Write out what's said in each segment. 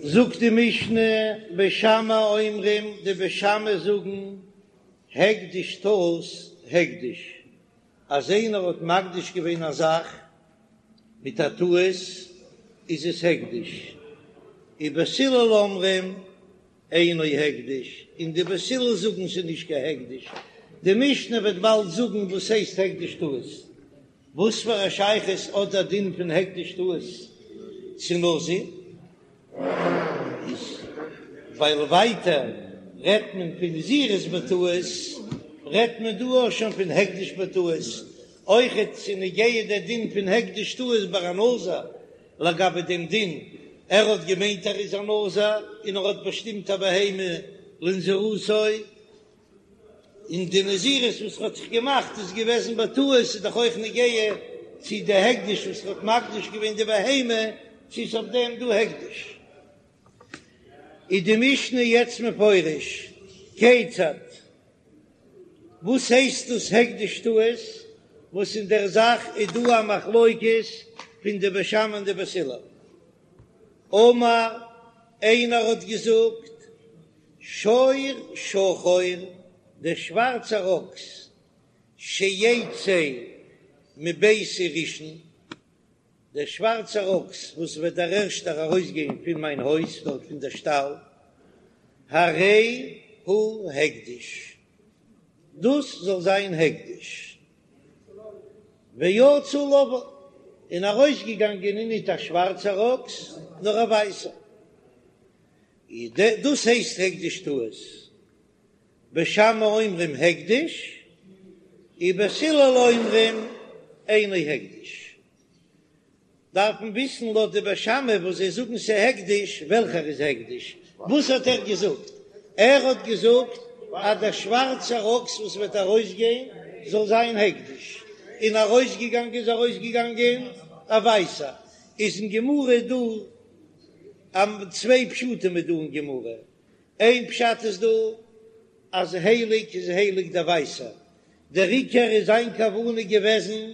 זאגט די משנה, בית שמאי אומרים, די בית שמאי זאגן, הקדש טעות הקדש, אז איינער האט מקדיש געווען א זאך מיט א טעות איז עס הקדש, ובית הלל אומרים אינו הקדש, און די בית הלל זאגן ס'איז נישט קיין הקדש, די משנה וועט באלד זאגן וואס הייסט הקדש טעות, וואס פאר א שייכות האט דער דין פון הקדש טעות צו נזיר? איז ווייל ווייטער רעדט מען פון נזירות בטעות, רעדט מען דא אויך שוין פון הקדש בטעות, אויכעט ס'איז נוגע דער דין פון הקדש טעות ביי א נזיר, לגבי דעם דין, ער האט געמיינט ער איז א נזיר און ער האט באשטימט א בהמה לנזירותו, און די נזירות וואס האט זיך געמאכט איז געוועזן בטעות, איז דאך אויך נוגע צו די הקדש וואס האט מקדיש געווען די בהמה, צו איז אויף דעם דא הקדש. איז די משנה יעצט מפרש, כיצד? וואס הייסט דאס הקדש טעות, וואס אין דער זאך איז דא א מחלוקת פון די בית שמאי און די בית הלל. אמר, איינער האט געזאגט, שור שחור, דער שווארצער אקס, שיצא מביתי ראשון, דער שווארצער אקס וואס וועט דער ערשטער ארויסגיין פון מיין הויז, דארט פון דער שטאל, הרי הוא הקדש, דאס זאל זיין הקדש. ויצא לבן, און ארויסגעגאנגען איז ניט א שווארצער אקס, נאר א ווייסער. דאס הייסט הקדש טעות. בית שמאי אומרים הקדש, ובית הלל אומרים אינו הקדש. דארף מען וויסן לויט די בית שמאי וואס זיי זאגן ס'הקדש, וועלכער איז הקדש? וואס האט ער געזאגט? ער האט געזאגט אז דער שווארצער אקס וואס וועט ארויסגיין זאל זיין הקדש, און ארויסגעגאנגען איז ארויסגעגאנגען א ווייסער. איז אין גמרא דא צוויי פשטים איז דא אין גמרא, איין פשט איז דא אז הייליג איז הייליג דער ווייסער, דער עיקר איז זיין כוונה געוועזן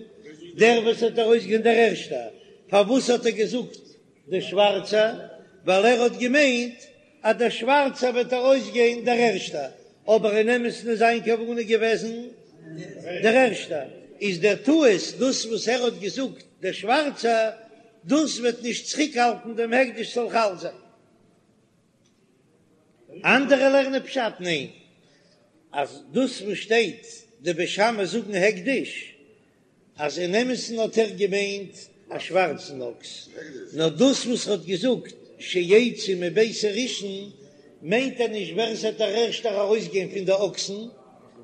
דער וואס האט ארויסגעגאנגען דער ערשטער, פארוואס האט ער געזאגט דער שווארצער? ווייל ער האט געמיינט אז דער שווארצער וועט ארויסגיין דער ערשטער, אבער אין אמת'ן איז זיין כוונה געוועזן דער ערשטער, איז דער טעות דאס וואס ער האט געזאגט דער שווארצער, דאס וועט נישט צוריקהאלטן דעם הקדש זאל חל זיין. אנדערע לערנען פשט ניין, אז דאס וואס שטייט די בית שמאי זאגן הקדש, אז אין אמת'ן האט ער געמיינט א שווארצן אקס, נאר דאס וואס ער האט געזאגט שיצא מביתי ראשון מיינט ער נישט ווער עס וועט דער ערשטער ארויסגיין פון די אקסן,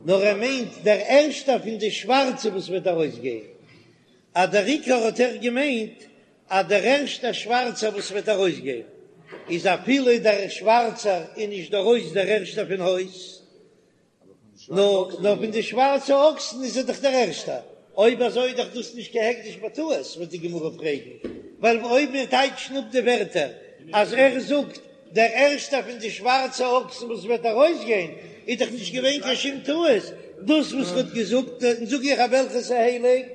נאר ער מיינט דער ערשטער פון די שווארצע וואס וועט ארויסגיין, אז דער עיקר האט ער געמיינט אז דער ערשטער שווארצער וואס וועט ארויסגיין איז אפילו דער שווארצער איז נישט ארויס דער ערשטער פון הויז, נאר נאר פון די שווארצע אקסן איז ער דאך דער ערשטער, אויב אזוי איז דאך דאס נישט קיין הקדש בטעות וועט די גמרא פרעגן, ווייל אויב מיר טייטשן אפ די ווערטער אז ער זאגט דער ערשטער פון די שווארצע אקסן וואס וועט ארויסגיין איז דאך נישט געווען קיין שום טעות, דאס וואס ער האט געזאגט, און זאג איך אז וועלכעס איז הייליג,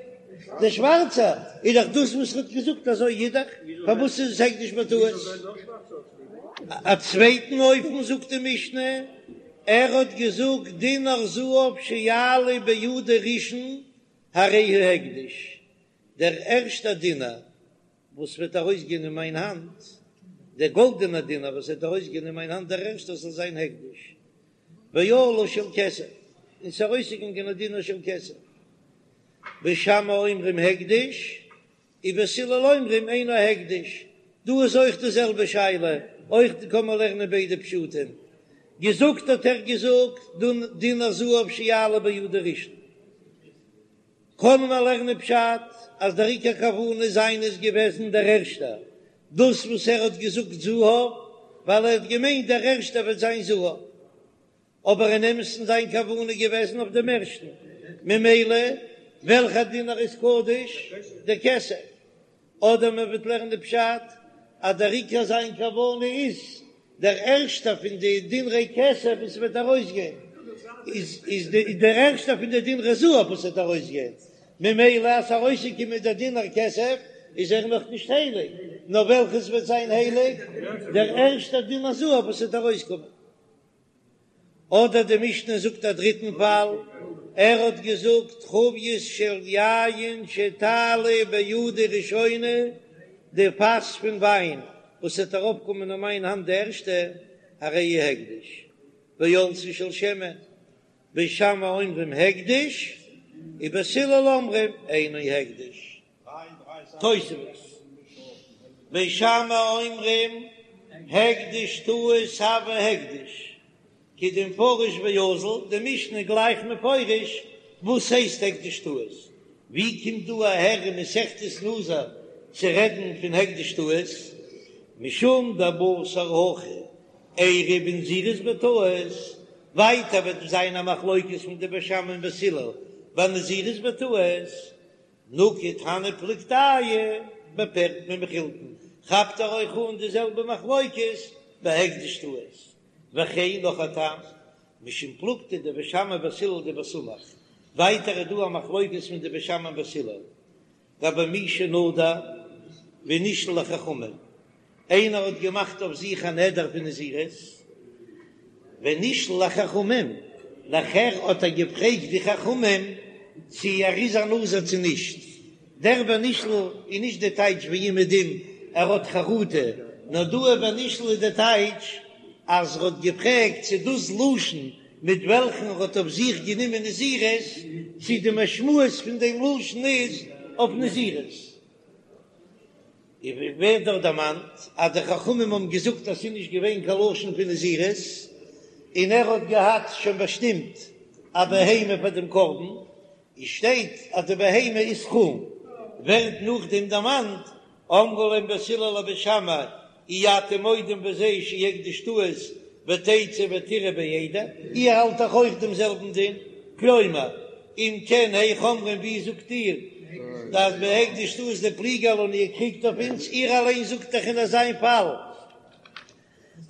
דער שווארצער, איז דאך דאס וואס ער האט געזאגט אזוי איז דאך, פארוואס איז עס הקדש בטעות? א צווייטן אופן זאגט די משנה, ער האט געזאגט דינר זהב שיעלה בידי ראשון הרי הוא הקדש, דער ערשטער דינר וואס וועט ארויסגיין אין מיין האנט, דער גאלדענער דינר וואס וועט ארויסגיין אין מיין האנט דער ערשטער זאל זיין הקדש, ועלה של כסף, און ס'איז ארויסגעגאנגען א דינר של כסף, בית שמאי אומרים הקדש, ובית הלל אומרים אינו הקדש, דא איז אויך די זעלבע שאלה, אויך קען מען לערנען ביידע פשטים, געזאגט האט ער געזאגט דינר זהב שיעלה בידי ראשון. קען מען לערנען פשט אז דער עיקר כוונה זיינע איז געוועזן דער ערשטער, דאס וואס ער האט געזאגט זהב, ווייל ער האט געמיינט דער ערשטער וועט זיין זהב, אבער אין אמת'ן זיין כוונה איז געוועזן אויף דעם ערשטן, ממילא וועלכער דינר איז קדוש? דער כסף. אדער מען וועט לערנען די פשט אז דער עיקר זיין כוונה איז דער ערשטער פון די דינרי כסף וואס וועט ארויסגיין איז איז דער ערשטער פון די דינרי זהב וואס וועט ארויסגיין, ממילא אז ס'ארויסגעקומען דער דינר כסף איז ער נאך נישט הייליג, נאר וועלכעס וועט זיין הייליג? דער ערשטער דין הזהב וואס וועט ארויסקומען. אדער די משנה זאגט א דריטן פאל, ער האט געזאגט חבית של יין שתעלה בידי ראשונה, די פאס פון וויין וואס וועט ארויפקומען אין מיין האנט די ערשטע, הרי היא הקדש, ועלתה של שמן, בית שמאי אומרים הקדש, ובית הלל אומרים אינו הקדש. תוספות, בית שמאי אומרים הקדש טעות הוי הקדש, כדמפרש ואזיל, די משנה גלייך מפרש וואס הייסט הקדש טעות, ווי קומט דא אהער אין מסכת נזיר צו רעדן פון הקדש טעות, משום דבתר הכא איירי בנזירות בטעות, ווייטער וועט זיין א מחלוקת פון די בית שמאי און בית הלל ביי נזירות בטעות, נקט הני פלוגתייהו בפרק במחילתין, כאפט ער אויך אן די זעלבע מחלוקת ביי הקדש טעות, וכן נאך א טעם, משום פלוגתא דבית שמאי ובית הלל דבסמוך, ווייטער איז דא א מחלוקת פון די בית שמאי און בית הלל, גבי מי שנדר ונשאל לחכמים, איינער האט געמאכט אויף זיך א נדר פון נזירות, ונשאל לחכמים, נאכער האט ער געפרעגט די חכמים צו ער איז א נזיר צו נישט, דער ונשאל איז נישט די טייטש ווי אומעדום ער האט חרטה, נאר דא ונשאל איז די טייטש אז ער האט געפרעגט צו דאס לשון מיט וועלכן ער האט אויף זיך גענומען נזירות, צו די משמעות פון דעם לשון איז אויף נזירות. און ווי ווערט דארט דערמאנט אז די חכמים האבן געזאגט אז ס'איז נישט געווען קיין לשון פון נזירות, און ער האט געהאט שוין באשטימט א בהמה פאר דעם קרבן, און שטייט אז די בהמה איז חולין, ווערט נאכדעם דערמאנט אמרו להם בית הלל לבית שמאי אי אתם מודים בזה שהוא הקדש טעות ותצאו ותרעו בעדר, איר האלט דאך אויך דעם זעלבן דין, כלומר, אם כן היאך אומרים ווי זאגט איר אז בהקדש טעות דפליגי עלן איר קריגט אויף אונז, איר אליין זאגט דאך אין אזיין פאל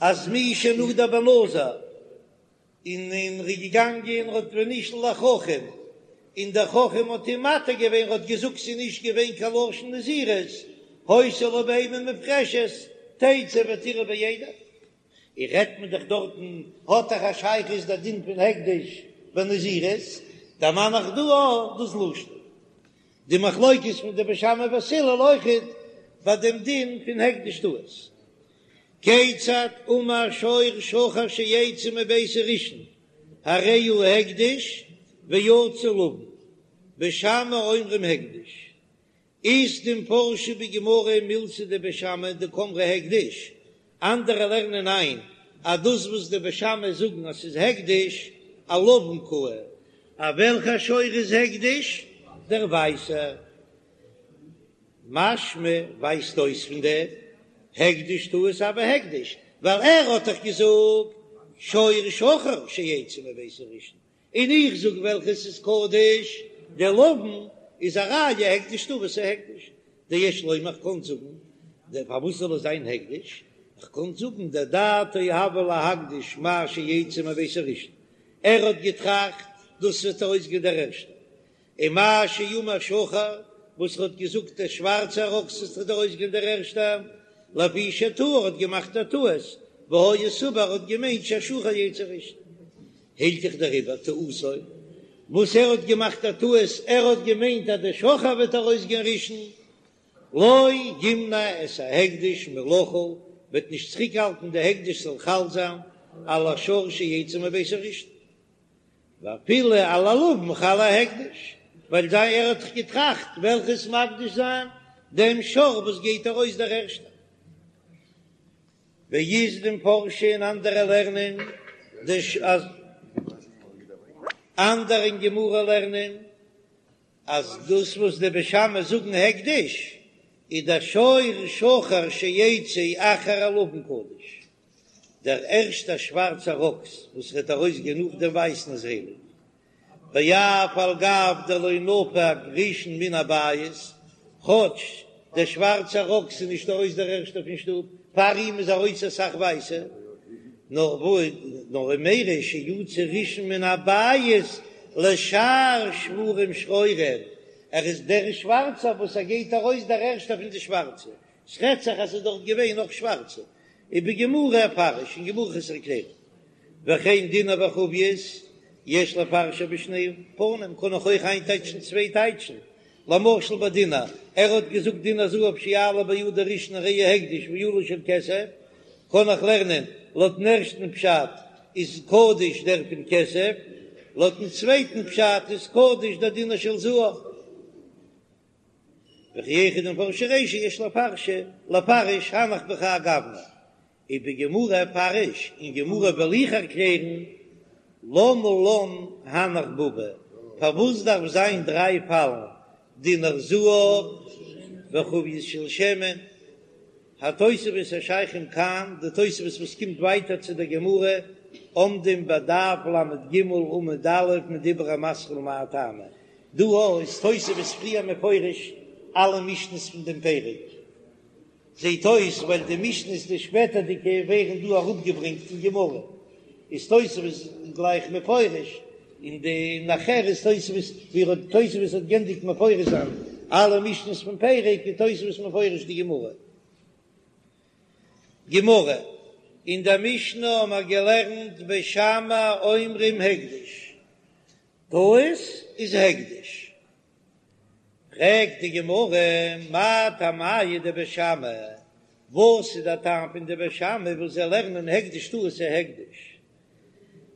אז מי שנדר בנזיר און און ר'איז געגאנגען און ר'האט ונשאל לחכם, און דער חכם האט אים מתיר געווען, ר'האט געזאגט ס'איז נישט געווען קיין לשון נזירות, היתה לו בהמה מופרשת, תצא ותרעה בעדר. און רעדט מען דאך דארטן האט דאך א שייכות דער דין פון הקדש בנזירות, דערמאן איך דא אויך דאס לשון. די מחלוקת פון די בית שמאי ובית הלל אויכעט ביי דעם דין פון הקדש טעות. כיצד אמר שור שחור שיצא מביתי ראשון הרי הוא הקדש ויצא לבן, בית שמאי אומרים הקדש, אית דמפרשי בגמרא מילתא דבית שמאי דקאמרי הקדש, אנדערע לערנען איין אז דאס וואס די בית שמאי זאגן אז ס'איז הקדש אלבן קאי, אז וועלכע שור איז הקדש? דער ווייסער. משמע ווייזט אויס פון דעם הקדש טעות הוי הקדש, ווייל ער האט דאך געזאגט שור שחור שיצא מביתי ראשון, און איך זאג וועלכעס איז קדוש, דער לבן איז א ראיה הקדש טעות איז הקדש, דיש לומר איך קען זאגן, דער פארוואס זאל עס זיין הקדש, איך קען זאגן דדעתו הוה להקדיש מה שיצא מביתו ראשון, ער האט געטראכט דאס וועט ארויסגיין דער ערשטער, און מה שאמר שחור, וואס ער האט געזאגט דער שווארצער אקס וואס וועט ארויסגיין דער ערשטער, לפי שטעה ער האט געמאכט א טעות, והיה סבור ער האט געמיינט שהשחור יצא ראשון. הילכך דעריבער טעותו, וואס ער האט געמאכט א טעות, ער האט געמיינט אז דער שחור וועט ארויסגיין ראשון, לא ימנע את ההקדש מלחול, וועט נישט צוריקהאלטן די הקדש זאל חל זיין על השור שיצא מביתו ראשון. ואפילו על הלבן חל ההקדש, ווייל זיי ער האט דאך געטראכט וועלכעס מקדיש זיין דעם שור וואס גייט ארויס דער ערשטער. ואית דמפרשי און אנדערע לערנען אז אנדערע אין גמרא לערנען אז דאס וואס די בית שמאי זאגן הקדש איז דער שור שחור שיצא אחר הלבן קדוש. דער ערשטער שווארצער אקס וואס וועט ארויסגיין נאך דעם ווייסן איז הייליג, ואף על גב דלא נפק ראשון מן הבית, כאטש דער שווארצער אקס איז נישט ארויס דער ערשטער פון שטוב, פאר אים איז ארויס אסאך ווייסע, נאר נאר ומיירי שיצא ראשון מן הבית לשאר שוורים שחורים, ער איז דער שווארצער וואס ער גייט ארויס דער ערשטער פון די שווארצע. ס'רעדט זיך אז ס'איז דארט געווען נאך שווארצע. ובגמרא אפרש, אין גמרא וועל איך עס ערקלערן. וכן דינר וחבית יש לפרשו בשני פנים, קען איך אויך איינטייטשן צוויי טייטשן, למשל ביי דינר, ער האט געזאגט דינר זהב שיעלה בידו ראשון הרי הוא הקדש ועלה של כסף, קען איך לערנען לויטן ערשטן פשט איז קדוש דער פון כסף, לויטן צווייטן פשט איז קדוש דער דינר של זהב. וכי היכי דמפרשי רישא יש לפרש לפרש הנך בכהאי גוונא ובגמרא אפרש, אין גמרא וועל איך ערקלערן למה לן הנך בבא, פארוואס דארף זיין דריי פאלן דינר זהב וחבית של שמן, התוספות השייכים כאן, די תוספות וואס קומט ווייטער צו דער גמרא, עומדים בדף ל"ג עמוד א' מדיבור המתחיל מאי טעמא, דא איז תוספות פריער מפרש אלע משניות פון דעם פרק, זעט אויס ווייל די משניות די שפעטערדיגע ווערן דא אראפגעברענגט אין גמרא, איז תוספות גלייך מפרש, און די נאכער איז תוספות ווי ער האט תוספות האט גענדיגט מפרש זיין אלע משניות פון פרק איז תוספות מפרש די גמרא. גמרא, אין דער משנה האבן מיר געלערנט בית שמאי אומרים הקדש, טעות איז הקדש. פרעגט די גמרא, מאי טעמייהו דבית שמאי, וואס איז דער טעם פון די בית שמאי וואס זיי לערנען הקדש טעות איז הקדש?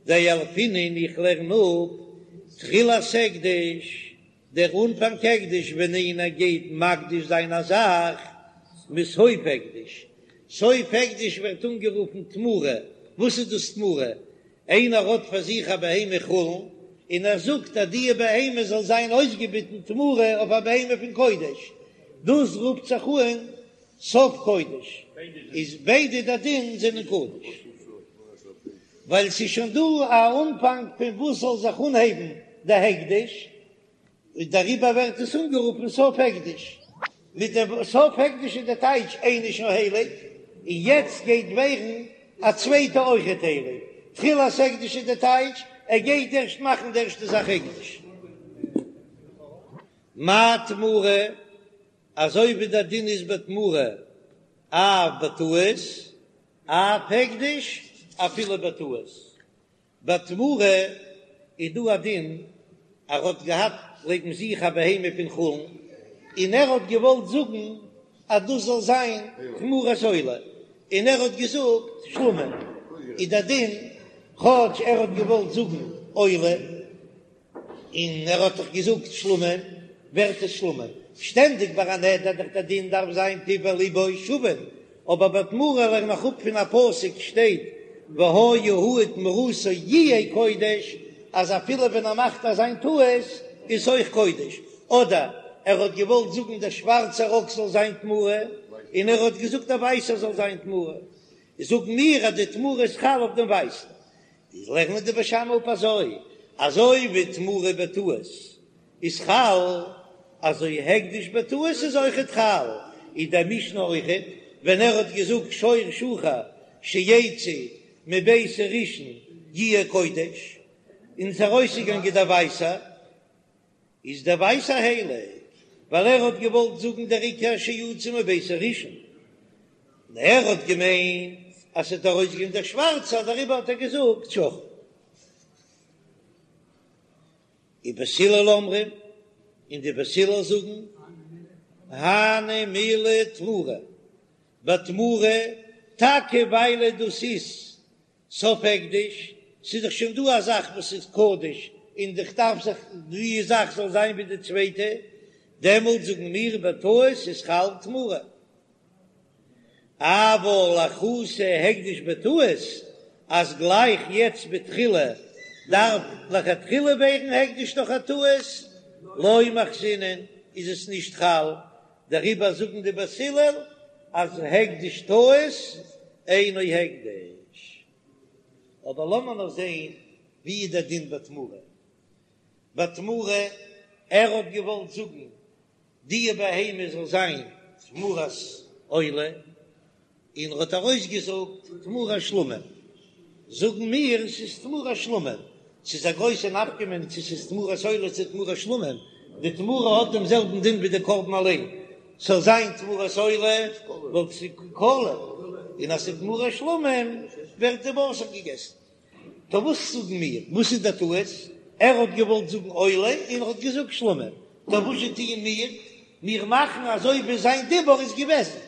דילפינן איך לערן אפ תחילת הקדש, דער אנפאנג הקדש ווען איינער גייט מקדיש זיין א זאך, מסוף הקדש, סוף הקדש ווערט אנגערופן תמורה, וואס איז דאס תמורה? איינער האט פאר זיך א בהמה חולין און ער זאגט אז די בהמה זאל זיין אויסגעביטן תמורה אויף א בהמה פון קודש, דאס רופט זיך אן סוף קודש, איז ביידע די דין זענען קודש, ווייל ס'איז שוין דא א אנפאנג פון וואס זאל זיך אנהייבן די הקדש, און דעריבער ווערט עס אנגערופן סוף הקדש. מיט דעם סוף הקדש איז די טייטש איינע שוין הייליג, און יעצט גייט ווערן א צווייטע אויכעט הייליג. תחילת הקדש איז די טייטש ער גייט ערשט מאכן די ערשטע זאך הקדש. מה תמורה, אזוי ווי דער דין איז בתמורה אף בטעות, אף הקדש אפילו בטעות. בתמורה איז דא א דין ער האט געהאט לעבן זיך א בהמה פון חולין און ער האט געוואלט זאגן אז דאס זאל זיין תמורת עולה און ער האט געזאגט שלמים איז דער דין כאטש ער האט געוואלט זאגן עולה און ער האט דאך געזאגט שלמים, ווערט עס שלמים. שטענדיג ביי א נדר דאך דער דין דארף זיין פיו ולבו שווין, אבער ביי תמורה לערן איך אפ פון א פסוק שטייט והיה הוא ותמורתו יהיה קודש, אז אפילו ווען ער מאכט אזיין טעות איז אויך קודש, אדער ער האט געוואלט זאגן דער שווארצער אקס זאל זיין תמורה, און ער האט געזאגט דער ווייסער זאל זיין תמורה, זאגן מיר אז די תמורה איז חל אויף דעם ווייסן. איז לערנען די בית שמאי אפ אזוי, אזוי ווי תמורה בטעות איז חל, אזוי הקדש בטעות איז אויכעט חל, איז די משנה אויכעט, ווען ער האט געזאגט שור שחור שיצא מביתי ראשון יהיה קודש, און ס'איז ארויסגעגאנגען דער ווייסער, איז דער ווייסער הייליג, ווייל ער האט געוואלט זאגן דער עיקר שיצא מביתי ראשון, און ער האט געמיינט אז ס'וועט ארויסגיין דער שווארצער, דעריבער האט ער געזאגט שחור. ובית הלל אומרים, און די בית הלל זאגן, הני מילי תמורה, בתמורה, טאקע ווייל דאס איז סוף הקדש, ס'איז דאך שוין דא א זאך וואס איז קדוש און איך דארף זיך די זאך זאל זיין ווי די צווייטע, דעמאלט זאגן מיר בטעות איז חל תמורה. אבל לאחותי הקדש בטעות, אז גלייך יעצט בתחילה דארף לכתחילה ווערן הקדש דורך א טעות, לא מחתינן איז עס נישט חל, דעריבער זאגן די בית הלל אז הקדש טעות אינו הקדש. אבער לאמיר נאר זען ווי איז דער דין בתמורה. בתמורה, ער האט געוואלט זאגן די בהמה זאל זיין תמורת עולה, און ער האט ארויסגעזאגט תמורת שלמים, זאגן מיר ס'איז תמורת שלמים, ס'איז א גרויסע נפקא מינה צו ס'איז תמורת עולה צו תמורת שלמים, די תמורה האט דעם זעלבן דין ווי די קרבן אליין. ס'זאל זיין תמורת עולה וואלט ס'איז קלא, און אז ס'איז תמורת שלמים ווערט די בשר געגעסן. טא וואס זאגן מיר? וואס איז דער טעות? ער האט געוואלט זאגן עולה און ער האט געזאגט שלמים, טא וואס זשע טוען מיר? מיר מאכן אזוי ווי זיין דיבור איז געוועזן.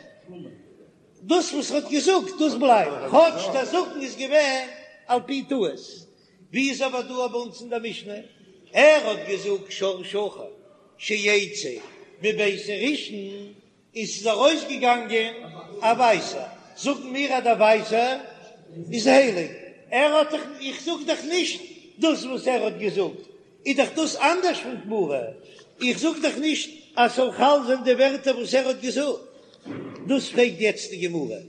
דאס וואס ער האט געזאגט דאס בלייבט, כאטש דער זאגן איז געווען על פי טעות. ווי איז אבער דא ביי אונז אין דער משנה? ער האט געזאגט שור שחור שיצא מביתי ראשון, און ס'איז ארויסגעגאנגען א ווייסער, זאגן מיר אז דער ווייסער איז הייליג, ער האט דאך, איך זאג דאך נישט דאס וואס ער האט געזאגט, איז דאך דאס אנדערש פון תמורה, איך זאג דאך נישט אז ס'זאל חל זיין די ווערטער וואס ער האט געזאגט, דאס פרעגט יעצט די גמרא,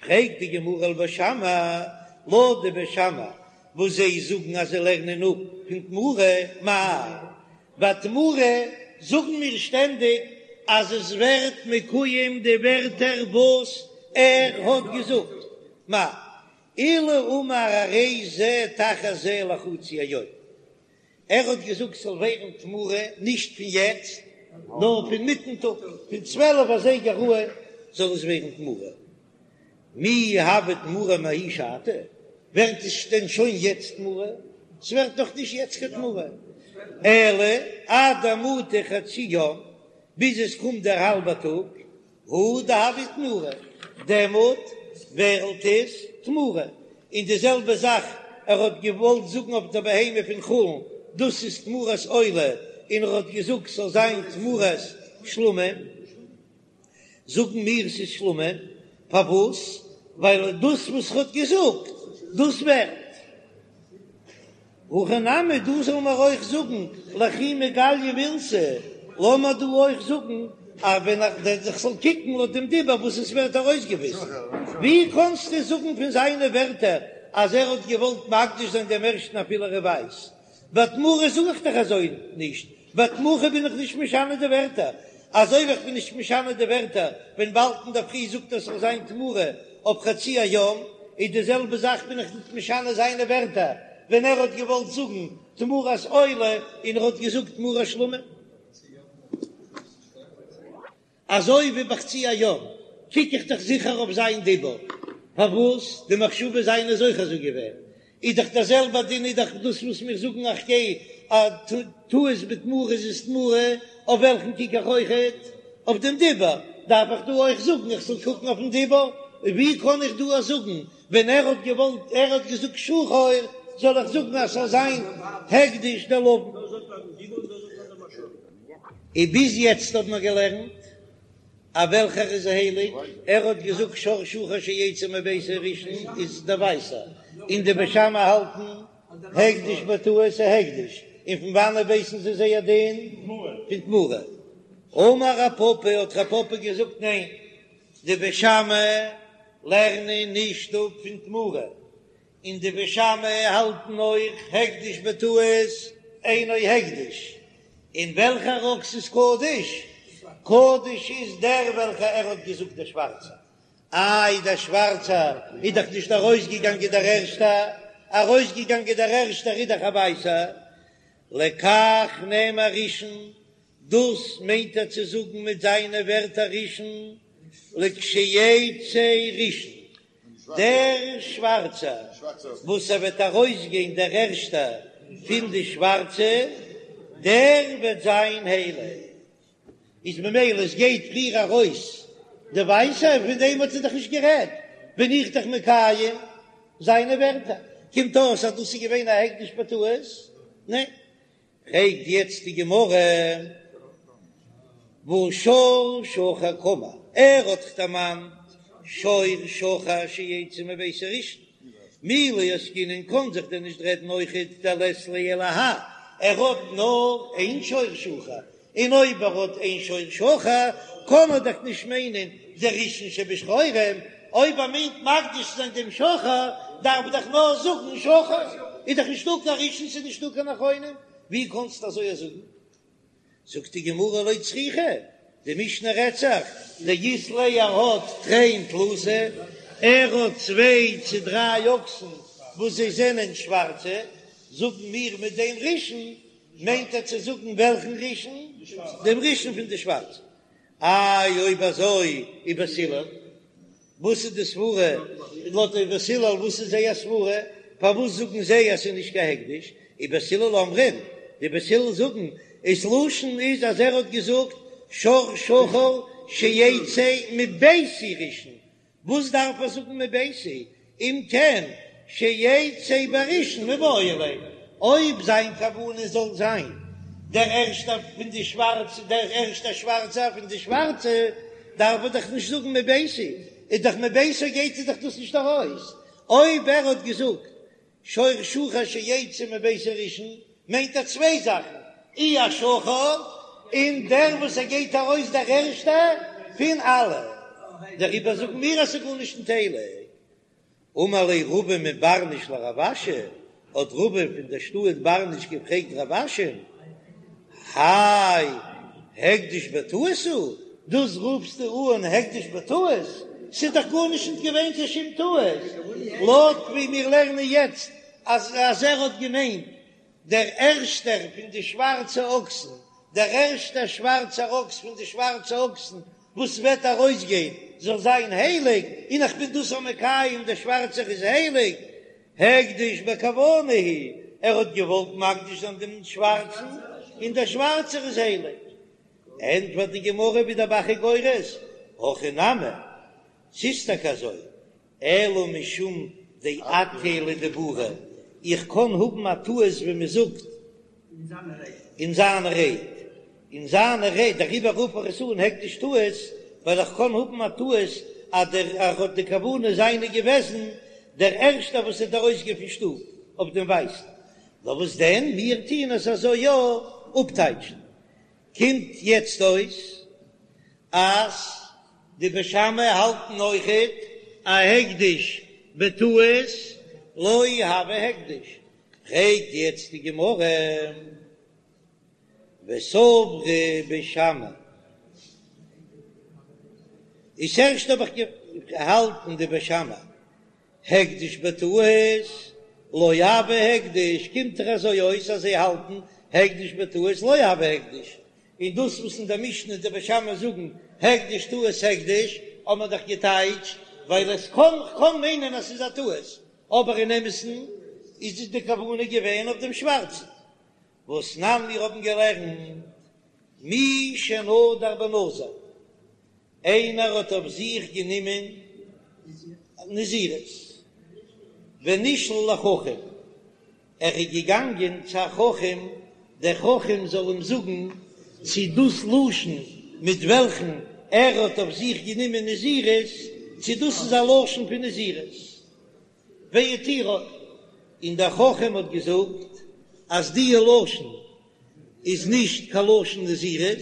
פרעגט די גמרא ולבית שמאי, לויט די בית שמאי וואס זיי זאגן אז זיי לערנען אפ פון תמורה, מאי ביי תמורה זאגן מיר שטענדיג אז עס ווערט מקויים די ווערטער וואס ער האט געזאגט, מאי אילו אמר הרי זה תחת זה לחצי היום, ער האט געזאגט ס'זאל ווערן תמורה נישט פון יעצט נאר פון מיטן טאג, פון צוועלף אזייגער אן זאל עס ווערן תמורה. מי הוי תמורה מההיא שעתא? ווערט עס דען שוין יעצט תמורה? ס'ווערט נאך נישט יעצט קיין תמורה, אלא עד דמטי חצי יום, ביז עס קומט דער האלבער טאג, הוא דהוי תמורה, דעמאלט ווערט עס תמורה, און די זעלבע זאך ער האט געוואלט זאגן אויף די בהמה פון חולין, דאס איז תמורת עולה, און ער האט געזאגט ס'זאל זיין תמורת שלמים, זאגן מיר ס'איז שלמים, פארוואס? ווייל דאס וואס ער האט געזאגט דאס ווערט. הכא נמי, דא זאל מען אויך זאגן לכי מגליא מילתא, לאמיר דא אויך זאגן אז ווען איך זאל קוקן לויט דעם דיבור וואס עס ווערט ארויסגעוויזן, ווי קענסטו זאגן פון זיינע ווערטער אז ער האט געוואלט מקדיש זיין דעם ערשטן אפילו ער איז ווייס? ביי תמורה זאג איך דאך אזוי נישט, ביי תמורה בין איך נישט משנה די ווערטער, אזוי ווי איך בין נישט משנה די ווערטער ווען באלד אינדערפרי זאגט ער ס'זאל זיין תמורה אויף חצי היום, איז די זעלבע זאך בין איך נישט משנה זיינע ווערטער ווען ער האט געוואלט זאגן תמורת עולה און ער האט געזאגט תמורת שלמים. אזוי ווי בחצי היום קוק איך דאך זיכער אויף זיין דיבור, פארוואס די מחשבה זיינע איז אויך אזוי געווען, איז דאך דער זעלבער דין איז דאך דאס וואס מיר זאגן איך גיי א טעות בתמורה איז עס תמורה, אויף וועלכן קוק איך אויכעט? אויף דעם דיבור, דארף איך דא אויך זאגן איך זאל קוקן אויפן דיבור? ווי קען איך דא זאגן ווען ער האט געוואלט ער האט געזאגט שחור זאל איך זאגן אז ס'זאל זיין הקדש דער לבן? און ביז יעצט האט מען געלערנט אז וועלכער איז הייליג, ער האט געזאגט שור שחור שיצא מביתי ראשון איז דער ווייסער, און די בית שמאי האלטן הקדש בטעות איז הקדש, און פון וואנעט ווייסן זיי זייער דין? פון תמורה. אמר רב פפא האט רב פפא געזאגט ניין, די בית שמאי לערנען נישט אפ פון תמורה, און די בית שמאי האלטן אויך הקדש בטעות אינו הקדש, און וועלכער אקס איז קדוש? קדוש איז דער וועלכער ער האט געזאגט דער שווארצער, איי דער שווארצער איז דאך נישט ארויסגעגאנגען דער ערשטער, ארויסגעגאנגען דער ערשטער איז דאך א ווייסער, לכך נאמר ראשון, דאס מיינט ער צו זאגן מיט זיינע ווערטער ראשון, לכשיצא ראשון, דער שווארצער וואס ער וועט ארויסגיין דער ערשטער פון די שווארצע, דער וועט זיין הייליג. איז ממילא עס גייט פריער ארויס די ווייסע, פון דעם האט ער דאך נישט גערעדט, בין איך דאך מקיים זיינע ווערטער. קומט אויס אז דאס איז געווען א הקדש בטעות? ניין. פרעגט יעצט די גמרא, והא שור שחור קאמר, ער האט דאך דערמאנט שור שחור שיצא מביתי ראשון, מי לא עסקינן קאן זיך דען נישט רעדן אויכעט דלית ליה אלא האי, ער האט נאר איין שור שחור, און אויב ער האט איין שור שחור קען ער דאך נישט מיינען די ראשון שבשחורים, אויב ער מיינט מקדיש צו זיין דעם שחור דארף ער דאך נאר זאגן שחור, איז דאך נישטא קיין ראשון ס'איז נישטא קיין אחרונים, ווי קענסטו אזוי זאגן? זאגט די גמרא לא צריכא, די משנה רעדט זיך דאית ליה ער האט תרין תלתא, ער האט צוויי צו דריי אקסן וואס זיי זענען שווארצע, זאגן מיר מיט דעם ראשון מיינט ער צו זאגן וועלכן ראשון? דעם ראשון פון די שווארצע. איי אויב אזוי ובית הלל, וואס איז די סברה לויט די בית הלל וואס איז זייער סברה פארוואס זאגן זיי אז ס'איז נישט קיין הקדש, ובית הלל אומרים, די בית הלל זאגן ס'לשון איז אז ער האט געזאגט שור שחור שיצא מביתי ראשון, וואס דארף ער זאגן מביתי, אם כן שיצא בראשון מיבעי ליה, אויב זיין כוונה זאל זיין דער ערשטער פון די שווארצע, דער ערשטער שווארצער פון די שווארצע, דארף ער דאך נישט זאגן מביתי, איז דאך מביתו גייט ער דאך דאס נישט ארויס, אויב ער האט געזאגט שור שחור שיצא מביתי ראשון מיינט ער צוויי זאכן, אי א שחור, און דער וואס ער גייט ארויס דער ערשטער פון אלע, דעריבער זאגן מיר אז ס'איז גארנישט ניט הייליג. אמר ליה רבא מברניש לרב אשי, האט רבא פון דער שטאט ברניש געפרעגט רב אשי'ן, האי הקדש בטעות הוא, דאס רופסטו אן הקדש בטעות? ס'איז דאך גארנישט נישט געווען קיין שום טעות, לויט ווי מיר לערנען יעצט אז אז ער האט געמיינט דער ערשטער פון די שווארצע אקסן, דער ערשטער שווארצער אקס פון די שווארצע אקסן וואס וועט ארויסגיין זאל זיין הייליג, און איך בין דאס מקיים דער שווארצער איז הייליג, הקדש בכוונה הוא, ער האט געוואלט מקדיש זיין דעם שווארצן, און דער שווארצער איז הייליג. ענטפערט די גמרא ווי דער ב"ח איז גורס, הכי נמי, ס'איז טאקע אזוי, אלא משום דאטעייה לדיבוריה, איך קען האבן א טעות ווי מען זאגט אין זיינע רייד, אין זיינע רייד, דעריבער רוף איך עס אן הקדש טעות, ווייל איך קען האבן א טעות אז דער ער האט די כוונה זיינע געוועזן דער ערשטער וואס וועט ארויסגיין פון שטוב אויף דעם ווייסן, נאר וואס דען, מיר טוען עס אזוי יא אפטייטשן, קומט יעצט אויס אז די בית שמאי האלטן אויכעט א הקדש בטעות לא הוי הקדש, פרעגט יעצט די גמרא וסברי בית שמאי, איז ערשט האב איך געהאלטן די בית שמאי הקדש בטעות לא הוי הקדש, קומט דאך אזוי אויס אז זיי האלטן הקדש בטעות לא הוי הקדש, און דאס וואס אין דער משנה די בית שמאי זאגן הקדש טעות הקדש האט מען דאך געטייטשט ווייל עס קען קען מיינען אז ס'איז א טעות, אבער אין אמת'ן איז די כוונה געווען אויף דעם שווארצן. והתנן מיר האבן געלערנט מי שנדר בנזיר. איינער האט אויף זיך גענומען נזירות, ונשאל לחכם, ער איז געגאנגען צו א חכם, דער חכם זאל אים זאגן צי דאס לשון מיט וועלכן ער האט אויף זיך גענומען נזירות, צי דאס איז א לשון פון נזירות, והתירו, און דער חכם האט געזאגט אז די לשון איז נישט קיין לשון נזירות,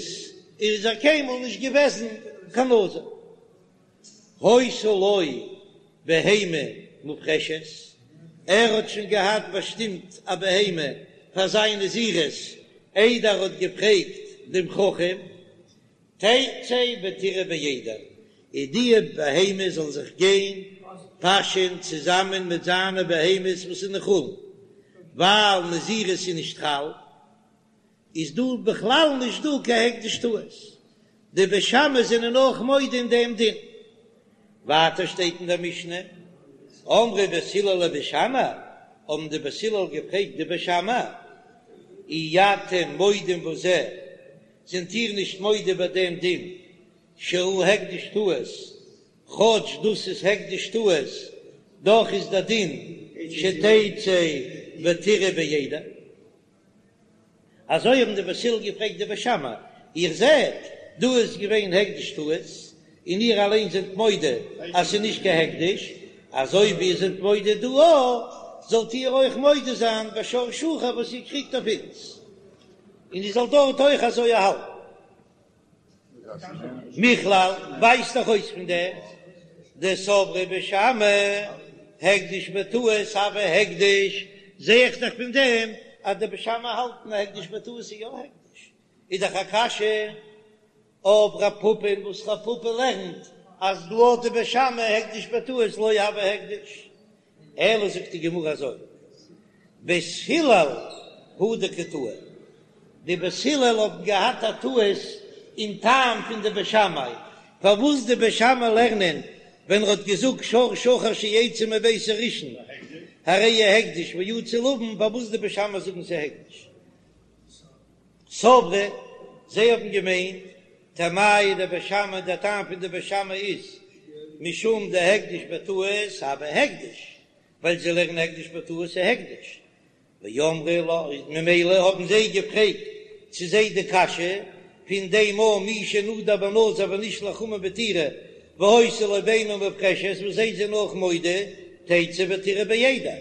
איז ער קיינמאל נישט געוועזן קיין נזיר. היתה לו בהמה מופרשת, ער האט שוין געהאט באשטימט א בהמה פאר זיין נזירות איידער ער האט געפרעגט דעם חכם, תצא ותרעה בעדר, און די בהמה זאל זיך גיין פאשען צוזאמען מיט זיינע בהמות וואס איז אין חולין, ווייל נזירות איז נישט חל, איז דא בכלל נישט דא קיין הקדש טעות, די בית שמאי זענען אויך מודה אין דעם דין. ווייטער שטייט אין דער משנה, אמרו בית הלל לבית שמאי, האבן די בית הלל געפרעגט די בית שמאי, אי אתם מודים בזה, זענט איר נישט מודה ביי דעם דין שהוא הקדש טעות, כאטש דאס איז הקדש טעות, דאך איז דער דין שתצא ותרעה בעדר. אזוי האבן די בית הלל געפרעגט די בית שמאי, איר זעט, דא איז געווען הקדש טעות, און איר אליין זענט מודה אז ס'איז נישט קיין הקדש, אזוי ווי איר זענט מודה דא אויך, זאלט איר אויך מודה זיין בשור שחור וואס איר קריגט אויף אונז, און איר זאלט דארט אויך אזוי האלטן. מכלל ווייזט דאך אויס פון דעם דסברי בית שמאי הקדש בטעות הוי הקדש, זע איך דאך פון דעם אז די בית שמאי האלטן אז הקדש בטעות איז יא הקדש, איז דאך א קשיא אויף רב פפא וואס רב פפא לערנט אז לויט די בית שמאי הקדש בטעות לא הוי הקדש, אלא זאגט די גמרא אזוי, בית הלל הוא דקא טעו, די בית הלל האבן געהאט א טעות. אין טעם פון די בית שמאי, פארוואס די בית שמאי לערנען ווען ער האט געזאגט שור שחור שיצא מביתי ראשון הרי הוא הקדש ויצא לבן, פארוואס די בית שמאי זאגן ס'איז הקדש? סברי, זיי האבן געמיינט, טעמייהו דבית שמאי, דער טעם פון די בית שמאי איז משום דהקדש בטעות הוי הקדש, ווייל זיי לערנען הקדש בטעות איז הקדש, ואמרי לה, ממילא האבן זיי געפרעגט צו זיי די קשיא פון דעם א מי שנדר בנזיר ונשלח חמור בתירה והיתה לו בהמה מופרשת וואס זיי זענען אויך מודה תצא ותרעה בעדר,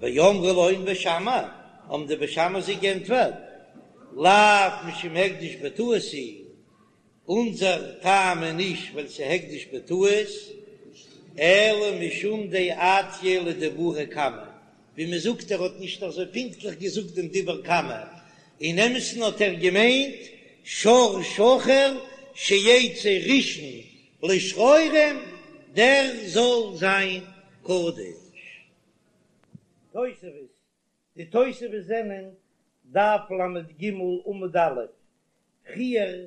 ואמרי להון בית שמאי, האבן די בית שמאי זיי גענטפערט, לאו משום הקדש בטעות הוא, אונזער טעם איז נישט ווייל ס'איז הקדש בטעות, אלא משום דאטעייה לדיבוריה קמא, ווי מ'זאגט ער האט נישט אזוי פונקטליך געזאגט דעם דיבור קמא, אין אמת'ן האט ער געמיינט שור שחור שיצא ראשון לשחורים דער זאל זיין קדוש. תוספות, די תוספות זענען דף ל"ג עמוד א', פריער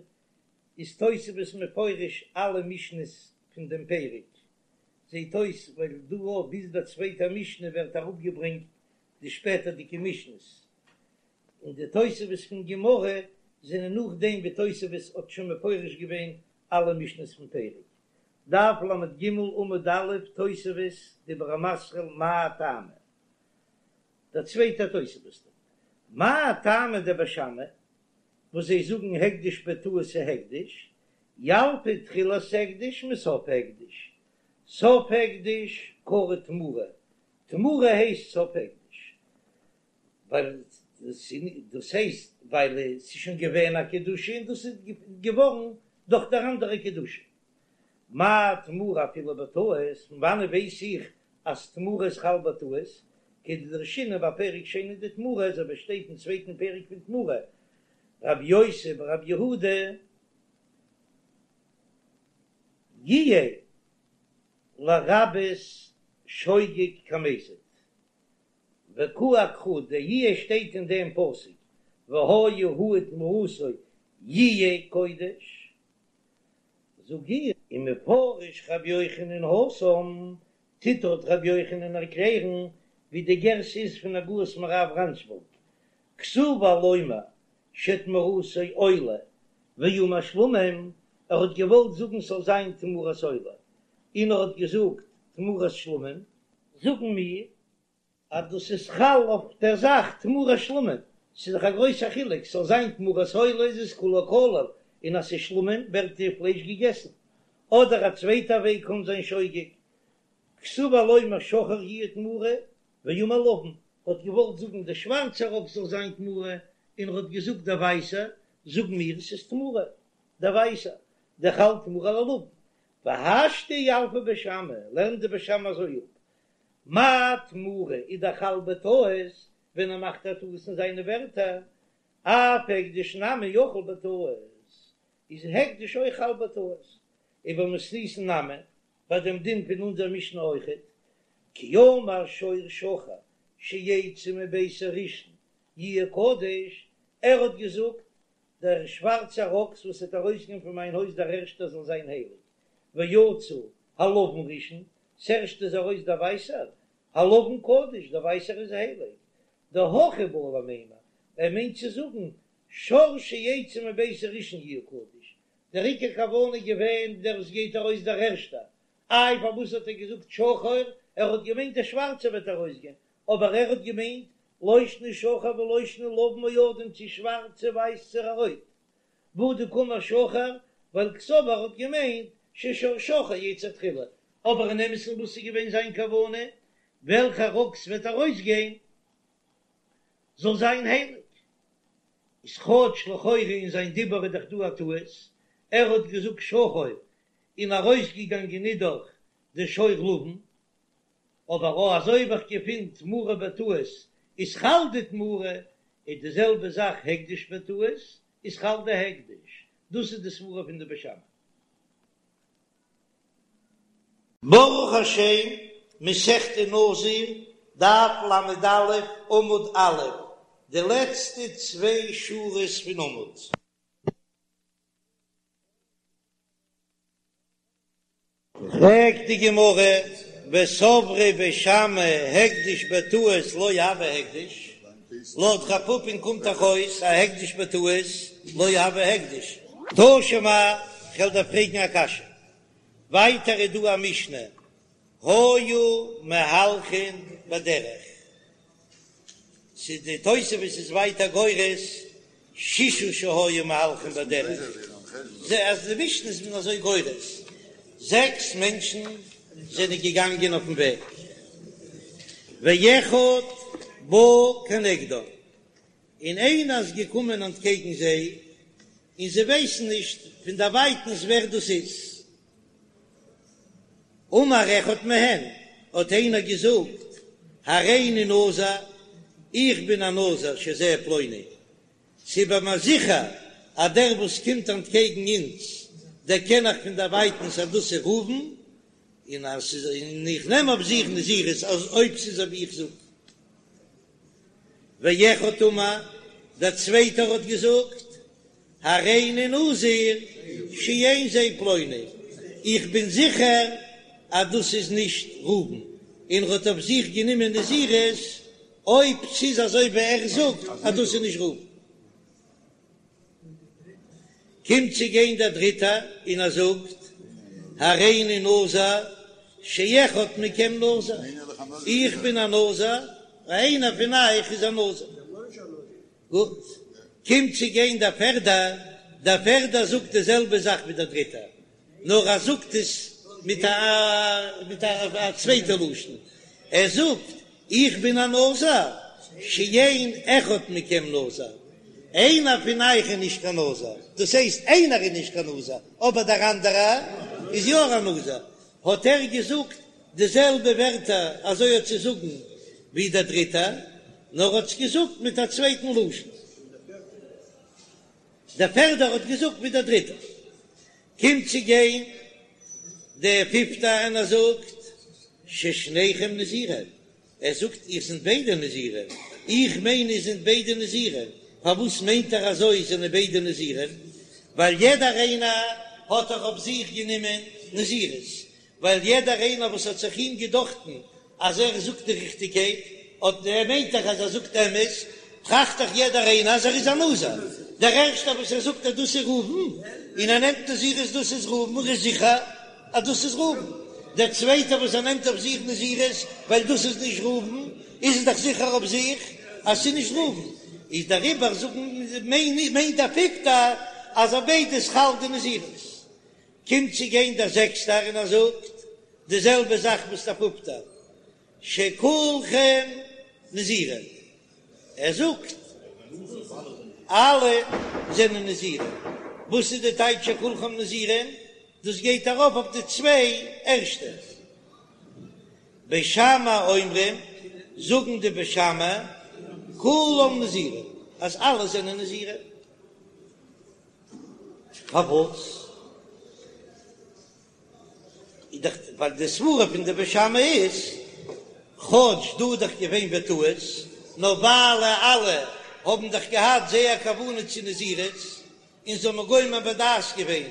איז תוספות מפרש אלע משניות פון דעם פרק, זעט אויס ווייל דא אויף ביז דער צווייטער משנה ווערט אראפגעברענגט די שפעטערדיגע משניות, און די תוספות פון גמרא זענען נאכדעם ווי תוספות האט שוין מפרש געווען אלע משניות פון פרק. דף ל"ג עמוד א', תוספות, דיבור המתחיל מאי טעמא? דער צווייטער תוספות דארט, מאי טעמא דבית שמאי, וואס זיי זאגן הקדש בטעות איז הקדש, ילפא תחילת הקדש מסוף הקדש, סוף הקדש קרי תמורה, תמורה הייסט סוף הקדש, ווייל דאס הייסט ווייל עס איז שוין געווען א קדושה און דאס איז געווארן דורך דער אנדערע קדושה. מה תמורה אפילו בטעות, פון וואנעט ווייס איך אז תמורה איז חל בטעות, כדדרשינן בפרק שני דתמורה, אזוי ווי שטייט אין צווייטן פרק פון תמורה, רבי יוסי ברבי יהודה יהיה לרבות שוגג כמזיד, וקאי אקרא דיהיה שטייט אין דעם פסוק והיה הוא ותמורתו יהיה קודש, זאג איך. ומפרש רבי יוחנן התם, טוט דארט רבי יוחנן ערקלערן ווי די גירסא איז פון הגהות מהר"ב רנשבורג, כסבור לומר שתמורתו עולה ואמר שלמים, ער האט געוואלט זאגן ס'זאל זיין תמורת עולה, און ער האט געזאגט תמורת שלמים, זאגן מיר אז דאס איז חל אויף דער זאך תמורת שלמים, ס'איז דאך א גרויסער חילוק, ס'זאל זיין תמורת עולה איז עס כולו כליל, און אז ס'איז שלמים ווערט די פלייש געגעסן. אדער א צווייטע וועג קען זיין שוגג, כסבור לומר שחור יהיה תמורה, ואמר לבן, האט געוואלט זאגן דער שווארצער אקס זאל זיין תמורה, און ער האט געזאגט דער ווייסער, זאגן מיר עס איז תמורה, דער ווייסער, דחל תמורה ללבן, והשתא ילפי בית שמאי, לערנט די בית שמאי אזוי אפ, מה תמורה איז דאך חל בטעות ווען ער מאכט א טעות אין זיינע ווערטער, אף הקדש נמי יחול בטעות, איז הקדש אויך חל בטעות, ובמתניתין נמי, ביי דעם דין פון אונזער משנה אויכעט, כי אמר שור שחור שיצא מביתי ראשון יהיה קדוש, ער האט געזאגט דער שווארצער אקס וואס וועט ארויסגיין פון מיין הויז דער ערשטער זאל זיין הייליג, ויצא הלבן ראשון, ס'ערשטע איז ארויס דער ווייסער, הלבן קדוש, דער ווייסער איז הייליג, דהכי בעי למימר, ער מיינט צו זאגן, שור שיצא מביתי ראשון יהיה קדוש, דער עיקר כוונה איז געווען דער וואס גייט ארויס דער ערשטער, איי פארוואס האט ער געזאגט שחור, ער האט געמיינט דער שווארצער וועט ארויסגיין, אבער ער האט געמיינט לא שנא שחור ולא שנא לבן או אדום צו שווארץ צו ווייס צו רויט, והא דקאמר שחור, ווייל קסבר האט געמיינט ששור שחור יצא תחילה, אבער אין אמת'ן וואס איז געווען זיין כוונה, וועלכער אקס וועט ארויסגיין זאל זיין הייליג, איז כאטש לכאורה אין זיין דיבור איז דאך דא א טעות, ער האט געזאגט שחור און ארויסגעגאנגען איז דאך די שור לבן, אבער או אזוי ווי איך געפין תמורה בטעות איז חל די תמורה, איז די זעלבע זאך הקדש בטעות איז חל די הקדש, דאס איז די סברה פון די בית שמאי. ברוך השם, מסכת נזיר, דף ל"א, עמוד א', די לעצטע צוויי שורות פון עמוד. פרעגט די גמרא, וסברי בית שמאי הקדש בטעות לא הוי הקדש, לויט רב פפא'ן קומט דאך אויס אז הקדש בטעות לא הוי הקדש. תא שמע, כ'וועל דיר פרעגן א קשיא, ווייטער איז דא א משנה, היו מהלכין בדרך, ס'איז די תוספות איז ווייטער גורס ששה שהיו מהלכין בדרך, זע אז די משנה איז מען אזוי גורס, זעקס מענטשן זענען געגאנגען אויפן וועג, ואחד בא כנגדם, און איינער איז געקומען אנטקעגן זיי, און זיי ווייסן נישט פון דערווייטנס ווער דאס איז. אמר אחד מהן, האט איינער געזאגט, הריני נזיר, איך בין א נזיר שזה פלוני, ס'איז ביי מיר זיכער אז דער וואס קומט אנטקעגן אונז, דערקען איך פון דערווייטנס אז דאס איז ראובן, און אז ס'איז, און איך נעם אויף זיך נזירות אז אויב ס'איז אזוי ווי איך זאג. ואחד אמר, דער צווייטער האט געזאגט, הריני נזיר שאין זה פלוני, איך בין זיכער אז דאס איז נישט ראובן, און ער האט אויף זיך גענומען נזירות אויב ס'איז אזוי ווי ער זאגט אז דאס איז נישט ראובן. קומט צו גיין דער דריטער און ער זאגט, הריני נזיר שאחד מכם נזיר, איך בין א נזיר, איינער פון אייך איז א נזיר. גוט, קומט צו גיין דער פערדער, דער פערדער זאגט די זעלבע זאך ווי דער דריטער, נאר ער זאגט עס מיט א מיט א צווייטע לשון, ער זאגט, איך בין א נזיר, שאין אחד מכם נזיר, איינער פון אייך איז נישט קיין נזיר, דאס הייסט איינער איז נישט קיין נזיר, אבער דער אנדערער איז יא א נזיר, האט ער געזאגט די זעלבע ווערטער אזוי האט צו זאגן ווי דער דריטער, נאר האט עס געזאגט מיט א צווייטן לשון. דער פערדער האט געזאגט ווי דער דריטער. קומט צו גיין דער פיפטער און ער זאגט ששניכם נזירים, ער זאגט איר זענט ביידע נזירים, איך מיין איר זענט ביידע נזירים, פארוואס מיינט ער אזוי זענען ביידע נזירים? ווייל יעדער איינער האט דאך אויף זיך גענומען נזירות, ווייל יעדער איינער וואס האט זיך אים געדאכטן אז ער זאגט די ריכטיגקייט, אט ער מיינט דאך אז ער זאגט אמת, טראכט דאך יעדער איינער אז ער איז א נזיר. דער ערשטער וואס ער זאגט אז דאס איז ראובן, און ער נעמט נזירות דאס איז ראובן, ער איז זיכער אז דאס איז ראובן. דער צווייטער וואס ער נעמט אויף זיך נזירות ווייל דאס איז נישט ראובן, איז ער דאך זיכער אויף זיך אז ס'איז נישט ראובן. איז דעריבער זאגן מיינט דער פיפטער אז אויף ביידע איז חל די נזירות. קומט צו גיין דער זעקסטער און ער זאגט די זעלבע זאך וואס דער פופטער, שכולכם נזירים, ער זאגט אלע זענען נזירים, וואס איז די טייטש שכולכם נזירים? דאס גייט ארויף אויף די צוויי ערשטע. בית שמאי אומרים, זאגן די בית שמאי, כולם נזירים, אז אלע זענען נזירים. פארוואס? איז דאך ווייל די סברה פון די בית שמאי איז, כאטש דא איז דאך געווען בטעות, נאר ווייל אלע האבן דאך געהאט זייער כוונה צו נזירות, און זיי האבן גומר בדעת געווען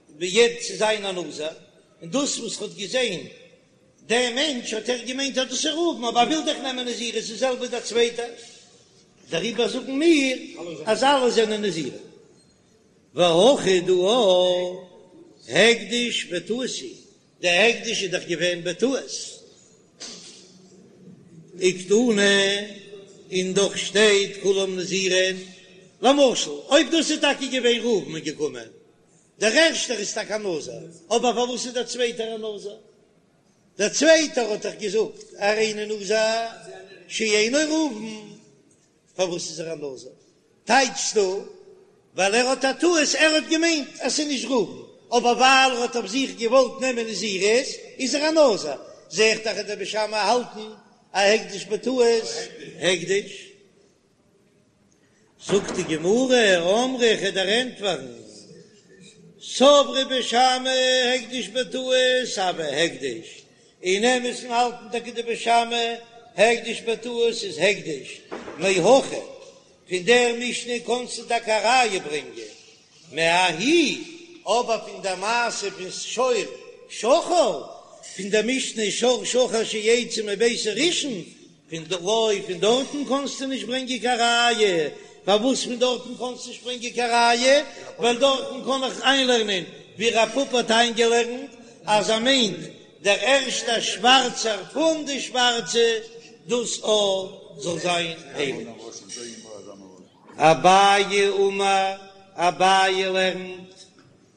ביד צו זיין א נזיר, און דאס וואס ער האט געזען דער מענטש האט ער געמיינט אז דאס איז ראובן, אבער ער וויל דאך נעמען נזירות, די זעלבע דער צווייטער, דעריבער זאגן מיר אז אלע זענען נזירים. והכא דא הקדש בטעות הוא, דער הקדש איז דאך געווען בטעות, וקתני, און דאך שטייט כולם נזירים, למשל אויב דאס איז טאקע געווען ראובן איז געקומען, דער ערשטער איז טאקע א נזיר, אבער פארוואס איז דער צווייטער א נזיר? דער צווייטער האט דאך געזאגט הריני נזיר שאינו ראובן, פארוואס איז ער א נזיר? טייטשסטו ווייל ער האט א טעות, ער האט געמיינט אז ס'איז נישט ראובן, אבער ווייל ער האט אויף זיך געוואלט נעמען נזירות איז ער א נזיר, זע איך דאך אז די בית שמאי האלטן א הקדש בטעות הקדש. זאגט די גמרא, אמרי איך וועל דיר ענטפערן, סברי בית שמאי הקדש בטעות הוי הקדש, אין אמת'ן האלטן טאקע די בית שמאי הקדש בטעות איז הקדש, מהכא, פון דער משנה קענסטו טאקע א ראיה ברענגען, מההיא, אבער פון דער מעשה פון שור. שחור, פון דער משנה שור שחור שיצא מביתי ראשון, פון ד לא פון דארטן קאנסטו נישט ברענגען קיין ראיה, פארוואס פון דארטן קאנסטו נישט ברענגען קיין ראיה? ווייל דארטן קען איך איינלערנען ווי רב פפא האט איינגעלערנט אז ער מיינט דער ערשטער שווארצער פון די שווארצע, דאס א זאל זיין הייליג. אביי אמר, אביי לערנט,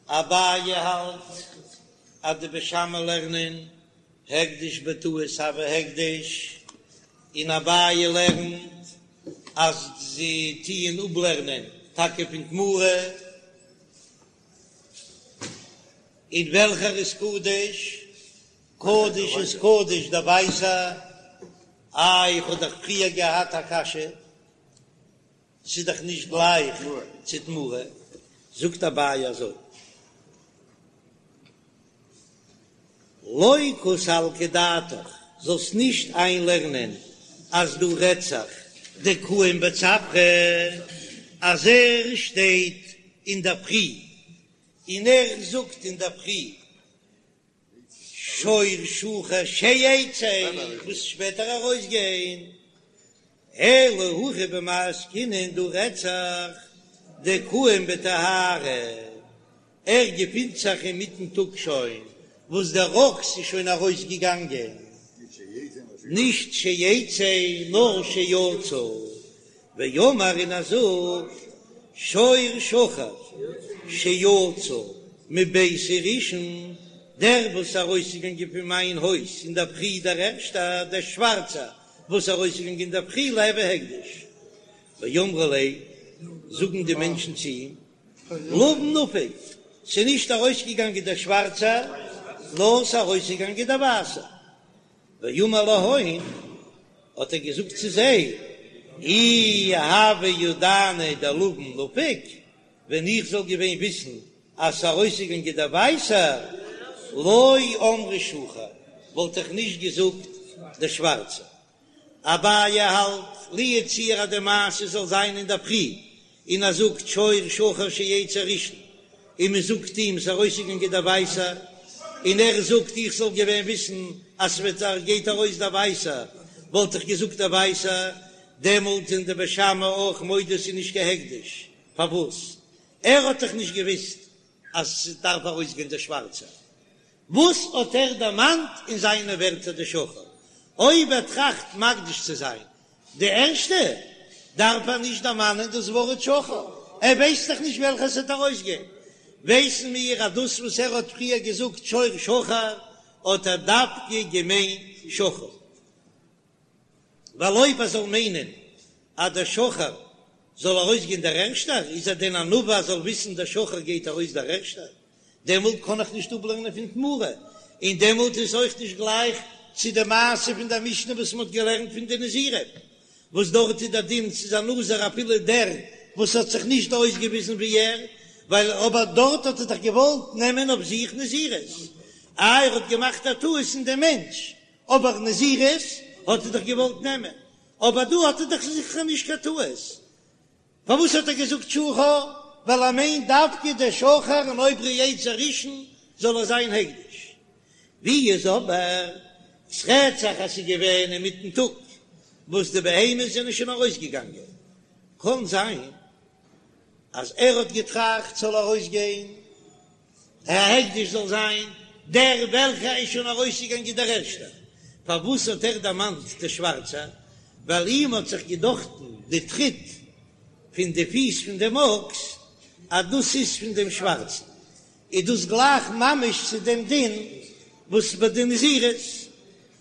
אביי האלט אז די בית שמאי לערנען הקדש בטעות הוי הקדש, און אביי לערנט אז זיי טוען אפלערנען טאקע פון תמורה, און וועלכער איז קדוש? קדוש איז קדוש דער ווייסער, איי איך האב דאך פריער געהאט א קשיא, ס'איז דאך נישט גלייך צו תמורה, זאגט אביי אזוי, לא קא סלקא דעתך, זאלסט נישט איינלערנען אז דא רעדט זיך דקאים בצפרא, אז ער שטייט אינדערפרי און ער זאגט אינדערפרי שור שחור שיצא, וואס שפעטער ארויסגיין, אלא הכא במאי עסקינן דא רעדט זיך דקאים בטהרה, ער געפינט זיך אינמיטן טאג שוין וואס דער אקס איז שוין ארויסגעגאנגען, נישט שיצא נאר שיצא, ואמר און ער זאגט שור שחור שיצא מביתי ראשון, דער וואס איז ארויסגעגאנגען פון מיין הויז אינדערפרי דער ערשטער, דער שווארצער וואס איז ארויסגעגאנגען אינדערפרי ליהוי הקדש, ואמרי ליה, זאגן די מענטשן צו אים, לבן נפיק, ס'איז נישט ארויסגעגאנגען דער שווארצער, נאר ס'איז ארויסגעגאנגען דער ווייסער. ואמר להון, האט ער געזאגט צו זיי, אי הוה ידענא דלבן נפיק, ווען איך זאל געווען וויסן אז ס'איז ארויסגעגאנגען דער ווייסער, לא אמרי שחור, וואלט איך נישט געזאגט דער שווארצער. אביי האלט, לו יצוייר אז די מעשה זאל זיין אינדערפרי, און ער זאגט שור שחור שיצא ראשון, און מען זאגט אים ס'איז ארויסגעגאנגען דער ווייסער, און ער זאגט איך זאל געווען וויסן אז ס'וועט גייט ארויס דער ווייסער, וואלט איך געזאגט דער ווייסער, דעמאלט זענען די בית שמאי אויך מודה ס'איז נישט קיין הקדש, פארוואס? ער האט דאך נישט געוויסט אז ס'דארף ארויסגיין דער שווארצער, וואס האט ער דערמאנט אין זיינע ווערטער די שחור? אויב ער טראכט מקדיש צו זיין די ערשטע, דארף ער נישט דערמאנען דאס ווארט שחור, ער ווייסט דאך נישט וועלכע ס'וועט ארויסגיין. ווייסן מיר אז דאס וואס ער האט פריער געזאגט שור שחור, האט ער דווקא געמיינט שחור. ווייל אויב ער זאל מיינען אז דער שחור זאל ארויסגיין דער ערשטער, איז ער דען א נביא אז זאל וויסן דער שחור גייט ארויס דער ערשטער? דעמאלט קען איך נישט אפלערנען פון תמורה, און דעמאלט איז אויך נישט גלייך צו די מעשה פון דער משנה וואס מען האט געלערנט פון די נזירים, וואס דארט איז דער דין ס'איז א נזיר אפילו דער וואס האט זיך נישט אויסגעוויזן ווי ער, ווייל אבער דארט האט ער דאך געוואלט נעמען אויף זיך נזירות, איי ער האט געמאכט א טעות אין דעם מענטש, אבער נזירות האט ער דאך געוואלט נעמען, אבער דא האט ער דאך זיכער נישט קיין טעות, פארוואס האט ער געזאגט שחור? ווייל ער מיינט דווקא דער שחור און אויב ער יצא ראשון זאל ער זיין הקדש. ווי איז אבער ס'רעדט זיך אז ס'איז געווען אינמיטן טאג וואס די בהמות זענען שוין ארויסגעגאנגען, קען זיין אז ער האט געטראכט ס'זאל ארויסגיין א הקדש זאל זיין דער וועלכער איז שוין ארויסגעגאנגען דער ערשטער. פארוואס האט ער דערמאנט די שווארצע? ווייל אים האט זיך געדאכטן די טריט פון די פיס פון דעם אקס אז דאס איז פון דעם שווארצן, איז דאס גלייך ממש צו דעם דין וואס ביי די נזירות,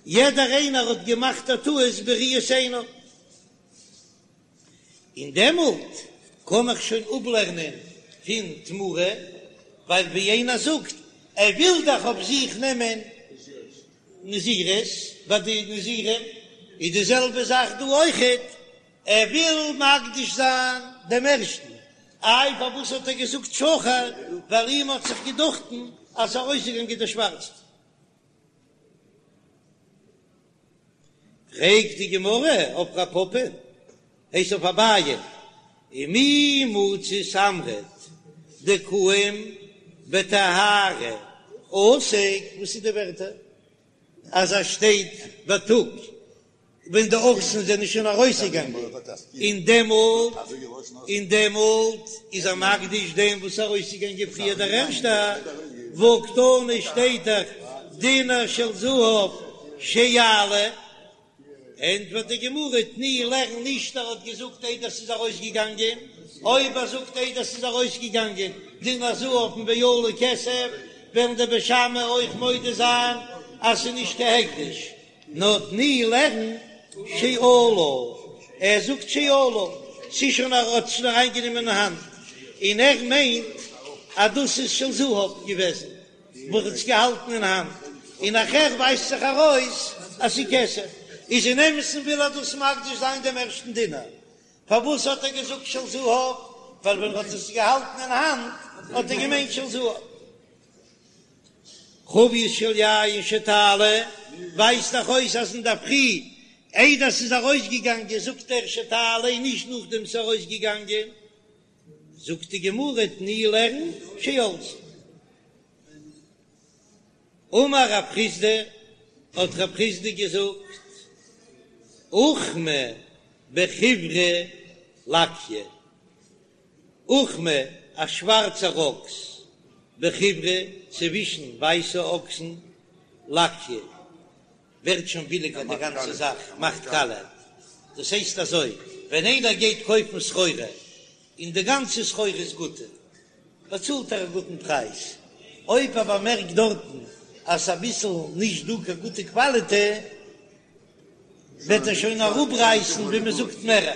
יעדער איינער האט געמאכט א טעות בראיית עינו. און דעמאלט קען איך שוין אפלערנען פון תמורה, ווייל ווי איינער זאגט, ער וויל דאך אויף זיך נעמען נזירות, ביי די נזירים איז די זעלבע זאך דא אויכעט, ער וויל מקדיש זיין דעם ערשטן, איי פארוואס האט ער געזאגט שחור, ווייל אים האט זיך געדאכטן אז ס'איז ארויסגעגאנגען דער שווארצער. פרעגט די גמרא אויף רב פפא, הייסט אויף אביי, ומי מצית אמרת דקאים בטהרה. עסק, וואס איז די ווערטער אז ער שטייט בייטאג ווען די אקסן זענען שוין ארויסגעגאנגען, און דעמאלט און דעמאלט איז ער מקדיש דעם וואס איז ארויסגעגאנגען פריער דער ערשטער, והא קתני שטייט דאך דינר של זהב שיעלה. ענטפערט די גמרא, תני לערן נישט ער האט געזאגט איידער ס'איז ארויסגעגאנגען, אויב ער זאגט איידער ס'איז ארויסגעגאנגען דינר זהב און ועלה כסף, וועלן די בית שמאי אויך מודה זיין אז ס'איז נישט קיין הקדש, נאר תני לערן שעלה, ער זאגט שעלה, ס'איז שוין ער האט עס שוין אריינגענומען אין האנט, און ער מיינט אז דאס איז של זהב געוועזן. וואס האט עס געהאלטן אין האנט, און נאכער ווייזט זיך ארויס אז ס'איז כסף, איז אין אמת'ן וויל ער דאס מקדיש זיין דעם ערשטן דינר, פארוואס האט ער געזאגט של זהב? ווייל ווען ער האט עס געהאלטן אין האנט האט ער געמיינט של זהב. חבית של יין שתעלה, ווייזט דאך אויס אז אינדערפרי איידער ס'איז ארויסגעגאנגען זאגט ער שתעלה און נישט נאכדעם ס'איז ארויסגעגאנגען. זאגט די גמרא תני לערן שעלתה. אמר רב חסדא, האט רב חסדא געזאגט, אוכמא בחיורא לקיא, אוכמא א שווארצער אקס, בחיורא צווישן ווייסע אקסן, לקיא ווערט שוין ביליגער די גאנצע זאך מאכט קאלע, דאס הייסט אזוי, ווען איינער גייט קויפן סחורה און די גאנצע סחורה איז גוטע, באצאלט ער א גוטן פרייז, אויב ער באמערקט דארטן אז ס'איז אביסל נישט דא קיין גוטע קוואליטע, וועט ער שוין אראפרייסן ווי מען זאגט מער.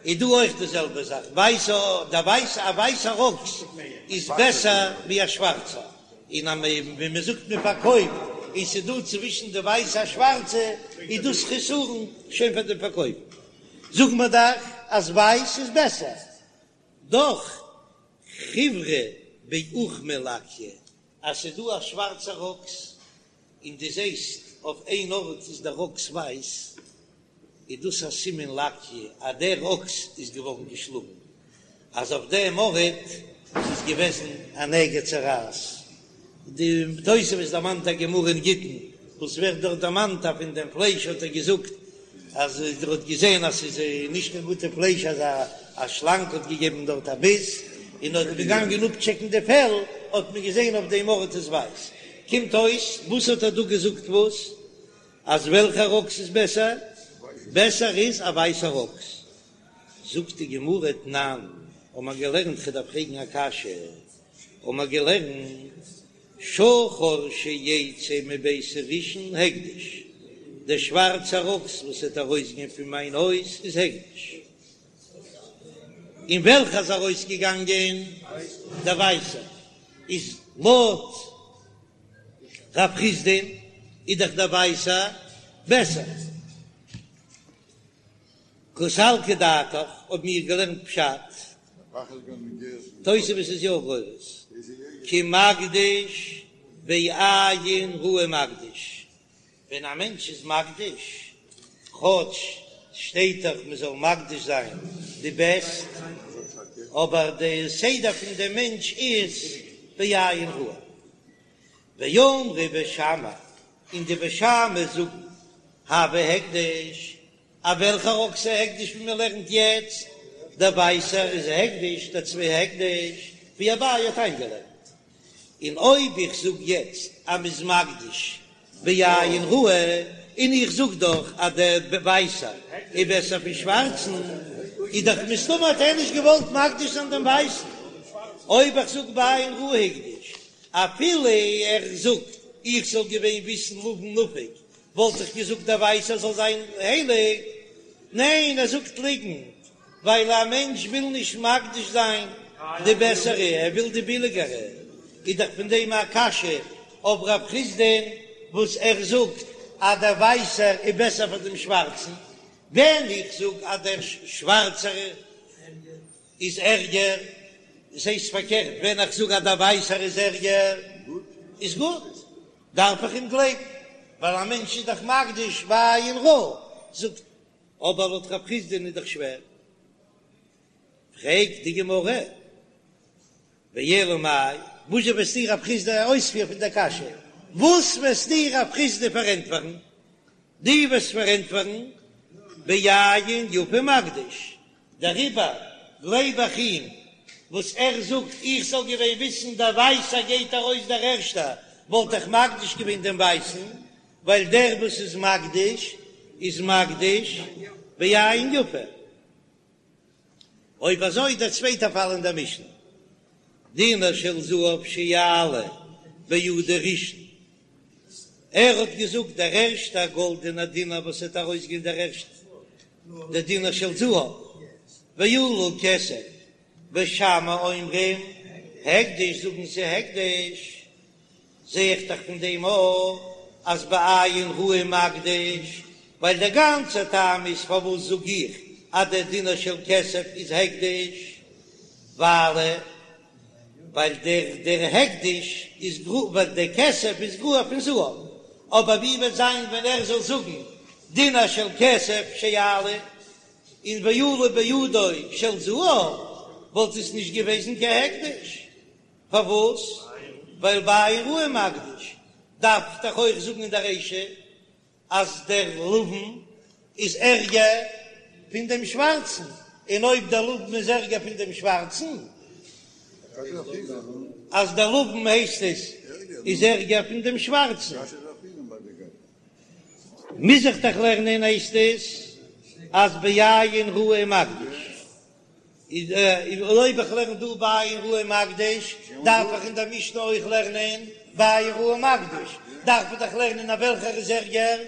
איז דא אויך די זעלבע זאך, ווייסע, דער ווייסע, א ווייסער אקס איז בעסער ווי א שווארצער, און אז מען, ווי מען זאגט מען פארקויפט, און ס'איז דא צווישן די ווייסע א שווארצע, איז דאס חסרון שוין פאר דעם פארקויפן. זאגט מען דאך אז ווייס איז בעסער. דאך חיורא באוכמא לקיא, אז ס'איז דא א שווארצער אקס, און דו זעסט אויף איין ארט איז דער אקס ווייס, איז דאס א סימן לקיא אז דער אקס איז געווארן געשלאגן, אז אויף דעם ארט איז געוועזן א נגע צרעת. די תוספות דערמאנט א גמרא אין גיטין וואס ווערט דארט דערמאנט אז פון דעם פלייש האט ער געזאגט אז ער האט געזען אז ס'איז נישט קיין גוטע פלייש אז א שלאנג האט געגעבן דארט א ביס, און האט געגאנגען אפטשעקן די פעל האט מען געזען אויף דעם ארט איז ווייס. קומט אויס וואס האט ער דא געזאגט וואס? אז וועלכער אקס איז בעסער? בעסער איז א ווייסער אקס. זאגט די גמרא תנן, האבן מיר געלערנט כ'דארף פרעגן א קשיא, האבן מיר געלערנט שחור שיצא מביתי ראשון הקדש, דער שווארצער אקס וואס וועט ארויסגיין פון מיין הויז איז הקדש, און וועלכער איז ארויסגעגאנגען? דער ווייסער איז לויט רב חסדא'ן איז דאך דער ווייסער בעסער. קא סלקא דעתך האבן מיר געלערנט פשט, תוספות איז יא גורס, כי מקדיש בעין רעה מקדיש, ווען א מענטש איז מקדיש, כאטש שטייט דאך מען זאל מקדיש זיין די בעסט, אבער די סדר פון דעם מענטש איז בעין רעה. ואמרי בית שמאי, און די בית שמאי זאגן, הוי הקדש, א וועלכער אקס איז הקדש ווי מען לערנט יעצט, דער ווייסער איז הקדש, דער צבי הקדש, ווי אביי האט איינגעלערנט. און אויב איך זאג יעצט אז מ'איז מקדיש בעין רעה, און איך זאג דאך אז דער ווייסער איז בעסער פון שווארצן, איז דאך מסתמא האט ער נישט געוואלט מקדיש זיין דעם ווייסן. אויב איך זאג בעין רעה הקדיש, אפילו ער זאגט איך זאל געווען וויסן לבן נפיק, וואלט איך געזאגט דער ווייסער זאל זיין הייליג. ניין, ער זאגט ליגנט, ווייל א מענטש וויל נישט מקדיש זיין די בעסערע, ער וויל די ביליגערע. איז דאך פון דעם א קשיא אויף רב חסדא'ן וואס ער זאגט אז דער ווייסער איז בעסער פאר דעם שווארצן, ווען איך זאג אז דער שווארצער איז ערגער, דאס הייסט פארקערט, ווען איך זאג אז דער ווייסער איז ערגער איז גוט, דארף איך אים גלייבן, ווייל א מענטש איז דאך מקדיש בעין רעה, זאגט אבער לויט רב חסדא'ן איז דאך שווער. פרעגט די גמרא, ואלא מאי? וואזשע וועסטו רב חסדא אויספיר פון דער קשיא? וואס וועסטו רב חסדא פארענטפערן? דו וועסט פארענטפערן בעין יפה מקדיש, דעריבער גלייב איך אים וואס ער זאגט, איך זאל געווען וויסן דער ווייסער גייט ארויס דער ערשטער, וואלט איך מקדיש געווען דעם ווייסן, ווייל דער וואס איז מקדיש איז מקדיש בעין יפה. אויב אזוי דער צווייטער פאל אין דער משנה, דינר של זהב שיעלה בידו ראשון, ער האט געזאגט דער ערשטער גאלדענער דינר וואס וועט ארויסגיין דער ערשטער, דער דינר של זהב, ועלה כסף, בית שמאי אומרים הקדש זאגן זיי הקדש, זע איך דאך פון דעם אויך אז בעין רעה מקדיש, ווייל דער גאנצער טעם איז פארוואס זאג איך אז דער דינר של כסף איז הקדש, ווייל ווייל דער דער הקדש איז גרוע ווייל דער כסף איז גרוע פון זהב, אבער ווי וועט זיין ווען ער זאל זאגן דינר של כסף שיעלה און ועלה בידו של זהב וואלט עס נישט געוועזן קיין הקדש. פארוואס? ווייל בעין רעה מקדיש דארף דאך אויך זאגן אין דער רישא אז דער לבן איז ערגער פון דעם שווארצן, און אויב דער לבן איז ערגער פון דעם שווארצן, אז דער לבן הייסט עס איז ערגער פון דעם שווארצן, מוז איך דאך לערנען הייסט עס אז בעין רעה מקדיש. איז אויב איך לערן דא בעין רעה מקדיש, דארף איך אין דער משנה אויך לערנען בעין רעה מקדיש, דארף איך דאך לערנען אז וועלכער איז ערגער,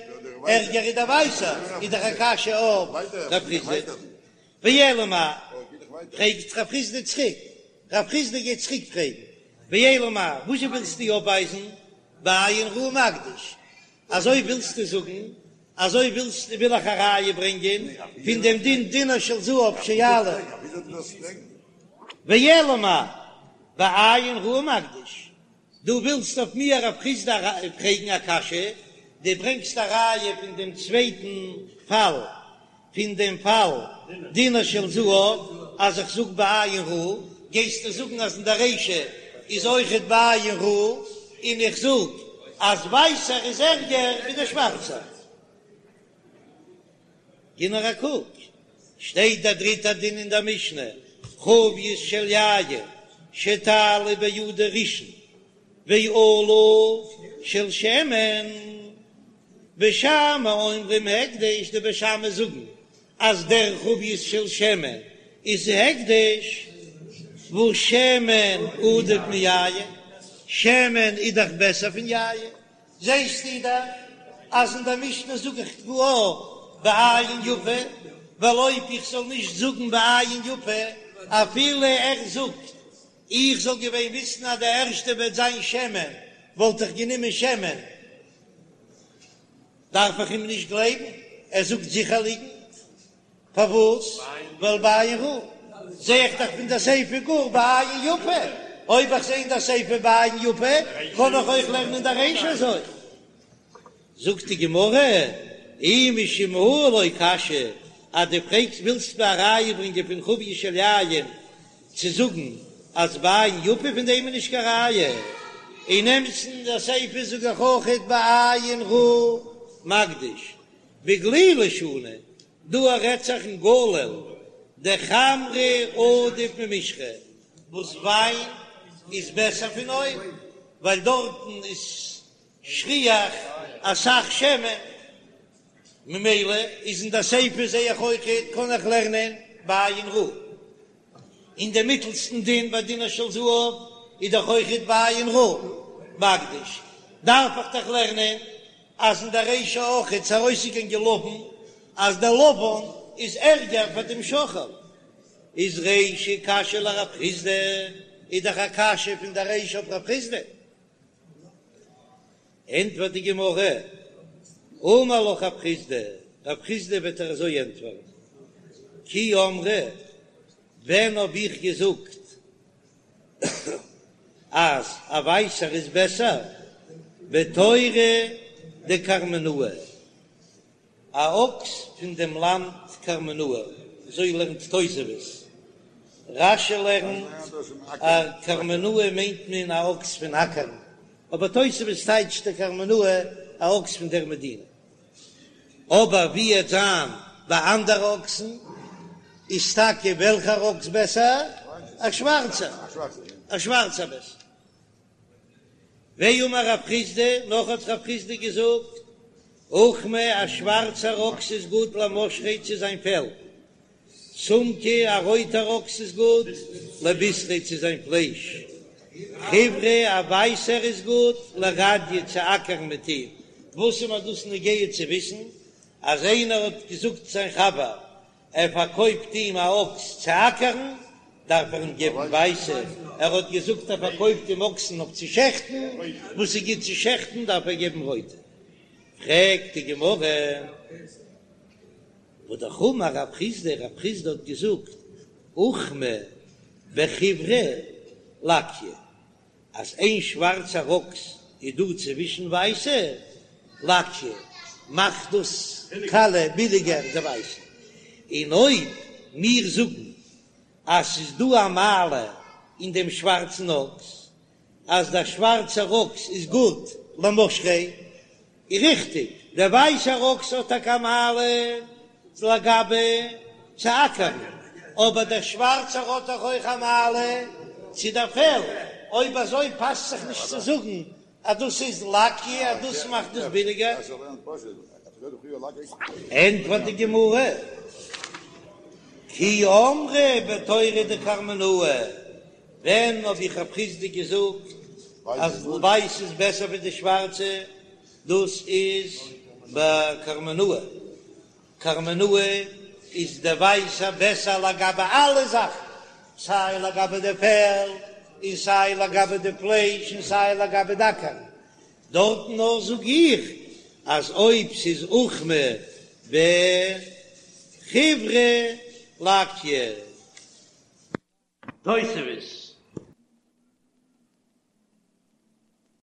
ערגער איז דער ווייסער, איז דאך א קשיא אויף רב חסדא. ואלא מאי, פרעגט רב חסדא צוריק, רב חסדא גייט צוריק פרעגן, ואלא מאי, וואזשע ווילסטו אויפווייזן בעין רעה מקדיש, אזוי ווילסטו זאגן? אזוי ווילסטו וויל איך א ראיה ברענגען פון דעם דין דינר של זהב שיעלה ואלא מאי בעין רעה מקדיש, דו ווילסט אויף מיר רב חסדא פרעגן א קשיא, דו ברענגסט א ראיה פון דעם צווייטן פאל פון דעם פאל דינר של זהב אז איך זאג בעין רעה, גייסטו זאגן אז אין דער רישא איז אויכעט בעין רעה, און איך זאג אז ווייסער איז ערגער ווי דער שווארצער. גיב נאר א קוק, שטייט דער דריטער דין אין דער משנה, חבית של יין שתעלה בידו ראשון ועלה של שמן, בית שמאי אומרים הקדש, די בית שמאי זאגן אז דער חבית של שמן איז הקדש, והא שמן עדיף מיין, שמן איז דאך בעסער פון יין, זעסטו דאך אז אין דער משנה זאג איך קלאר בעין יפה, ווייל אויב איך זאל נישט זאגן בעין יפה אפילו ער זאגט איך זאל געווען וויסן אז די ערשטע וועט זיין שמן, וואלט איך גענומען שמן. דארף איך אים נישט גלייבן, ער זאגט זיכער ליגנט. פארוואס? ווייל בעין רעה. זע איך דאך פון די סיפא גאר בעין יפה. אויב איך זע אין די סיפא בעין יפה, קען איך אויך לערנען די רישא אזוי. זאגט די גמרא, אי משום הא לא קשיא, אז דו פרעגסט ווילסט מיר א ראיה ברענגען פון חבית של יין צו זאגן אז בעין יפה פון דעם איז נישט קיין ראיה, אין אמת'ן די סיפא זאג איך אויכעט בעין רעה מקדיש בגלילי שנו, דא רעדט זיך אין גליל דחמרא עדיף ממשחא וואס וויין איז בעסער פון אויל ווייל דארטן איז שכיח אסאך שמן, ממילא איז אין די סיפא זעה איך אויכעט קען איך לערנען בעין רעה. אין דעם מיטלסטן דין ביי דינר של זהב איז דאך אויכעט בעין רעה מקדיש, דארף איך דאך לערנען אז אין דער רישא אויכעט ס'איז ארויסגעגאנגען לבן אז דער לבן איז ערגער פאר דעם שחור, איז רישא קשיא לרב חסדא, איז דאך א קשיא פון דער רישא אויף רב חסדא. ענטפערט די גמרא, אמר לך רב חסדא, רב חסדא וועט דיר אזוי ענטפערן, כי אמרי, ווען האב איך געזאגט אז א ווייסער איז בעסער, בתורא דקרמנאי, א אקס פון דעם לאנד קרמנאה, אזוי לערנט תוספות. רש"י לערנט אז קרמנאה מיינט מען א אקס פון אקערן, אבער תוספות טייטשט די קרמנאה א אקס פון דער מדינה. אבער ווי עט זיין ביי אנדערע אקסן, איז טאקע וועלכער אקס בעסער? א שווארצער, א שווארצער בעסער. ואמר רב חסדא, נאך האט רב חסדא געזאגט, אוכמא, א שווארצער אקס איז גוט למשכיה צו זיין פעל, סומקא, א רויטער אקס איז גוט לבישריה צו זיין פלייש, חיורא, א ווייסער איז גוט לרדיא צו אקערן מיט אים. וואס איז מיר דאס נוגע צו וויסן אז איינער האט געזאגט זיין חבר ער פארקויפט אים א אקס צו אקערן, דארף ער אים געבן ווייסע, ער האט געזאגט ער פארקויפט אים אקסן אויף צו שעכטן, וואס איז גוט צו שעכטן דארף ער געבן רויטע. פרעגט די גמרא, והא אמר רב חסדא, רב חסדא האט געזאגט, אוכמא בחיורא לקיא, אז איין שווארצער אקס איז דא צווישן ווייסע, לקיא, מאכט דאס קאלע ביליגער די ווייסע, און אויב מיר זאגן אז ס'איז דא א מעלה אין דעם שווארצן אקס, אז דער שווארצער אקס איז גוט למשכיה, איז ריכטיג, דער ווייסער אקס האט טאקע א מעלה לגבי צו אקערן, אבער דער שווארצער האט דאך אויך א מעלה צו דער פעל, אויב אזוי פאסט זיך נישט צו זאגן אז דאס איז לקיא אז דאס מאכט דאס ביליגער. ענטפערט די גמרא, כי אמרה בתורא דקרמנאה, ווען האב איך רב חסדא געזאגט אז ווייס איז בעסער ווי די שווארצע? דאס איז ביי קרמנאה, קרמנאה איז די ווייסע בעסער לגבי אלע זאכן, סיי לגבי די פעל, און סיי לגבי די פלייש, און סיי לגבי די אקערן. דארטן נאר זאג איך אז אויב ס'איז אוכמא בחיורא לקיא. תוספות.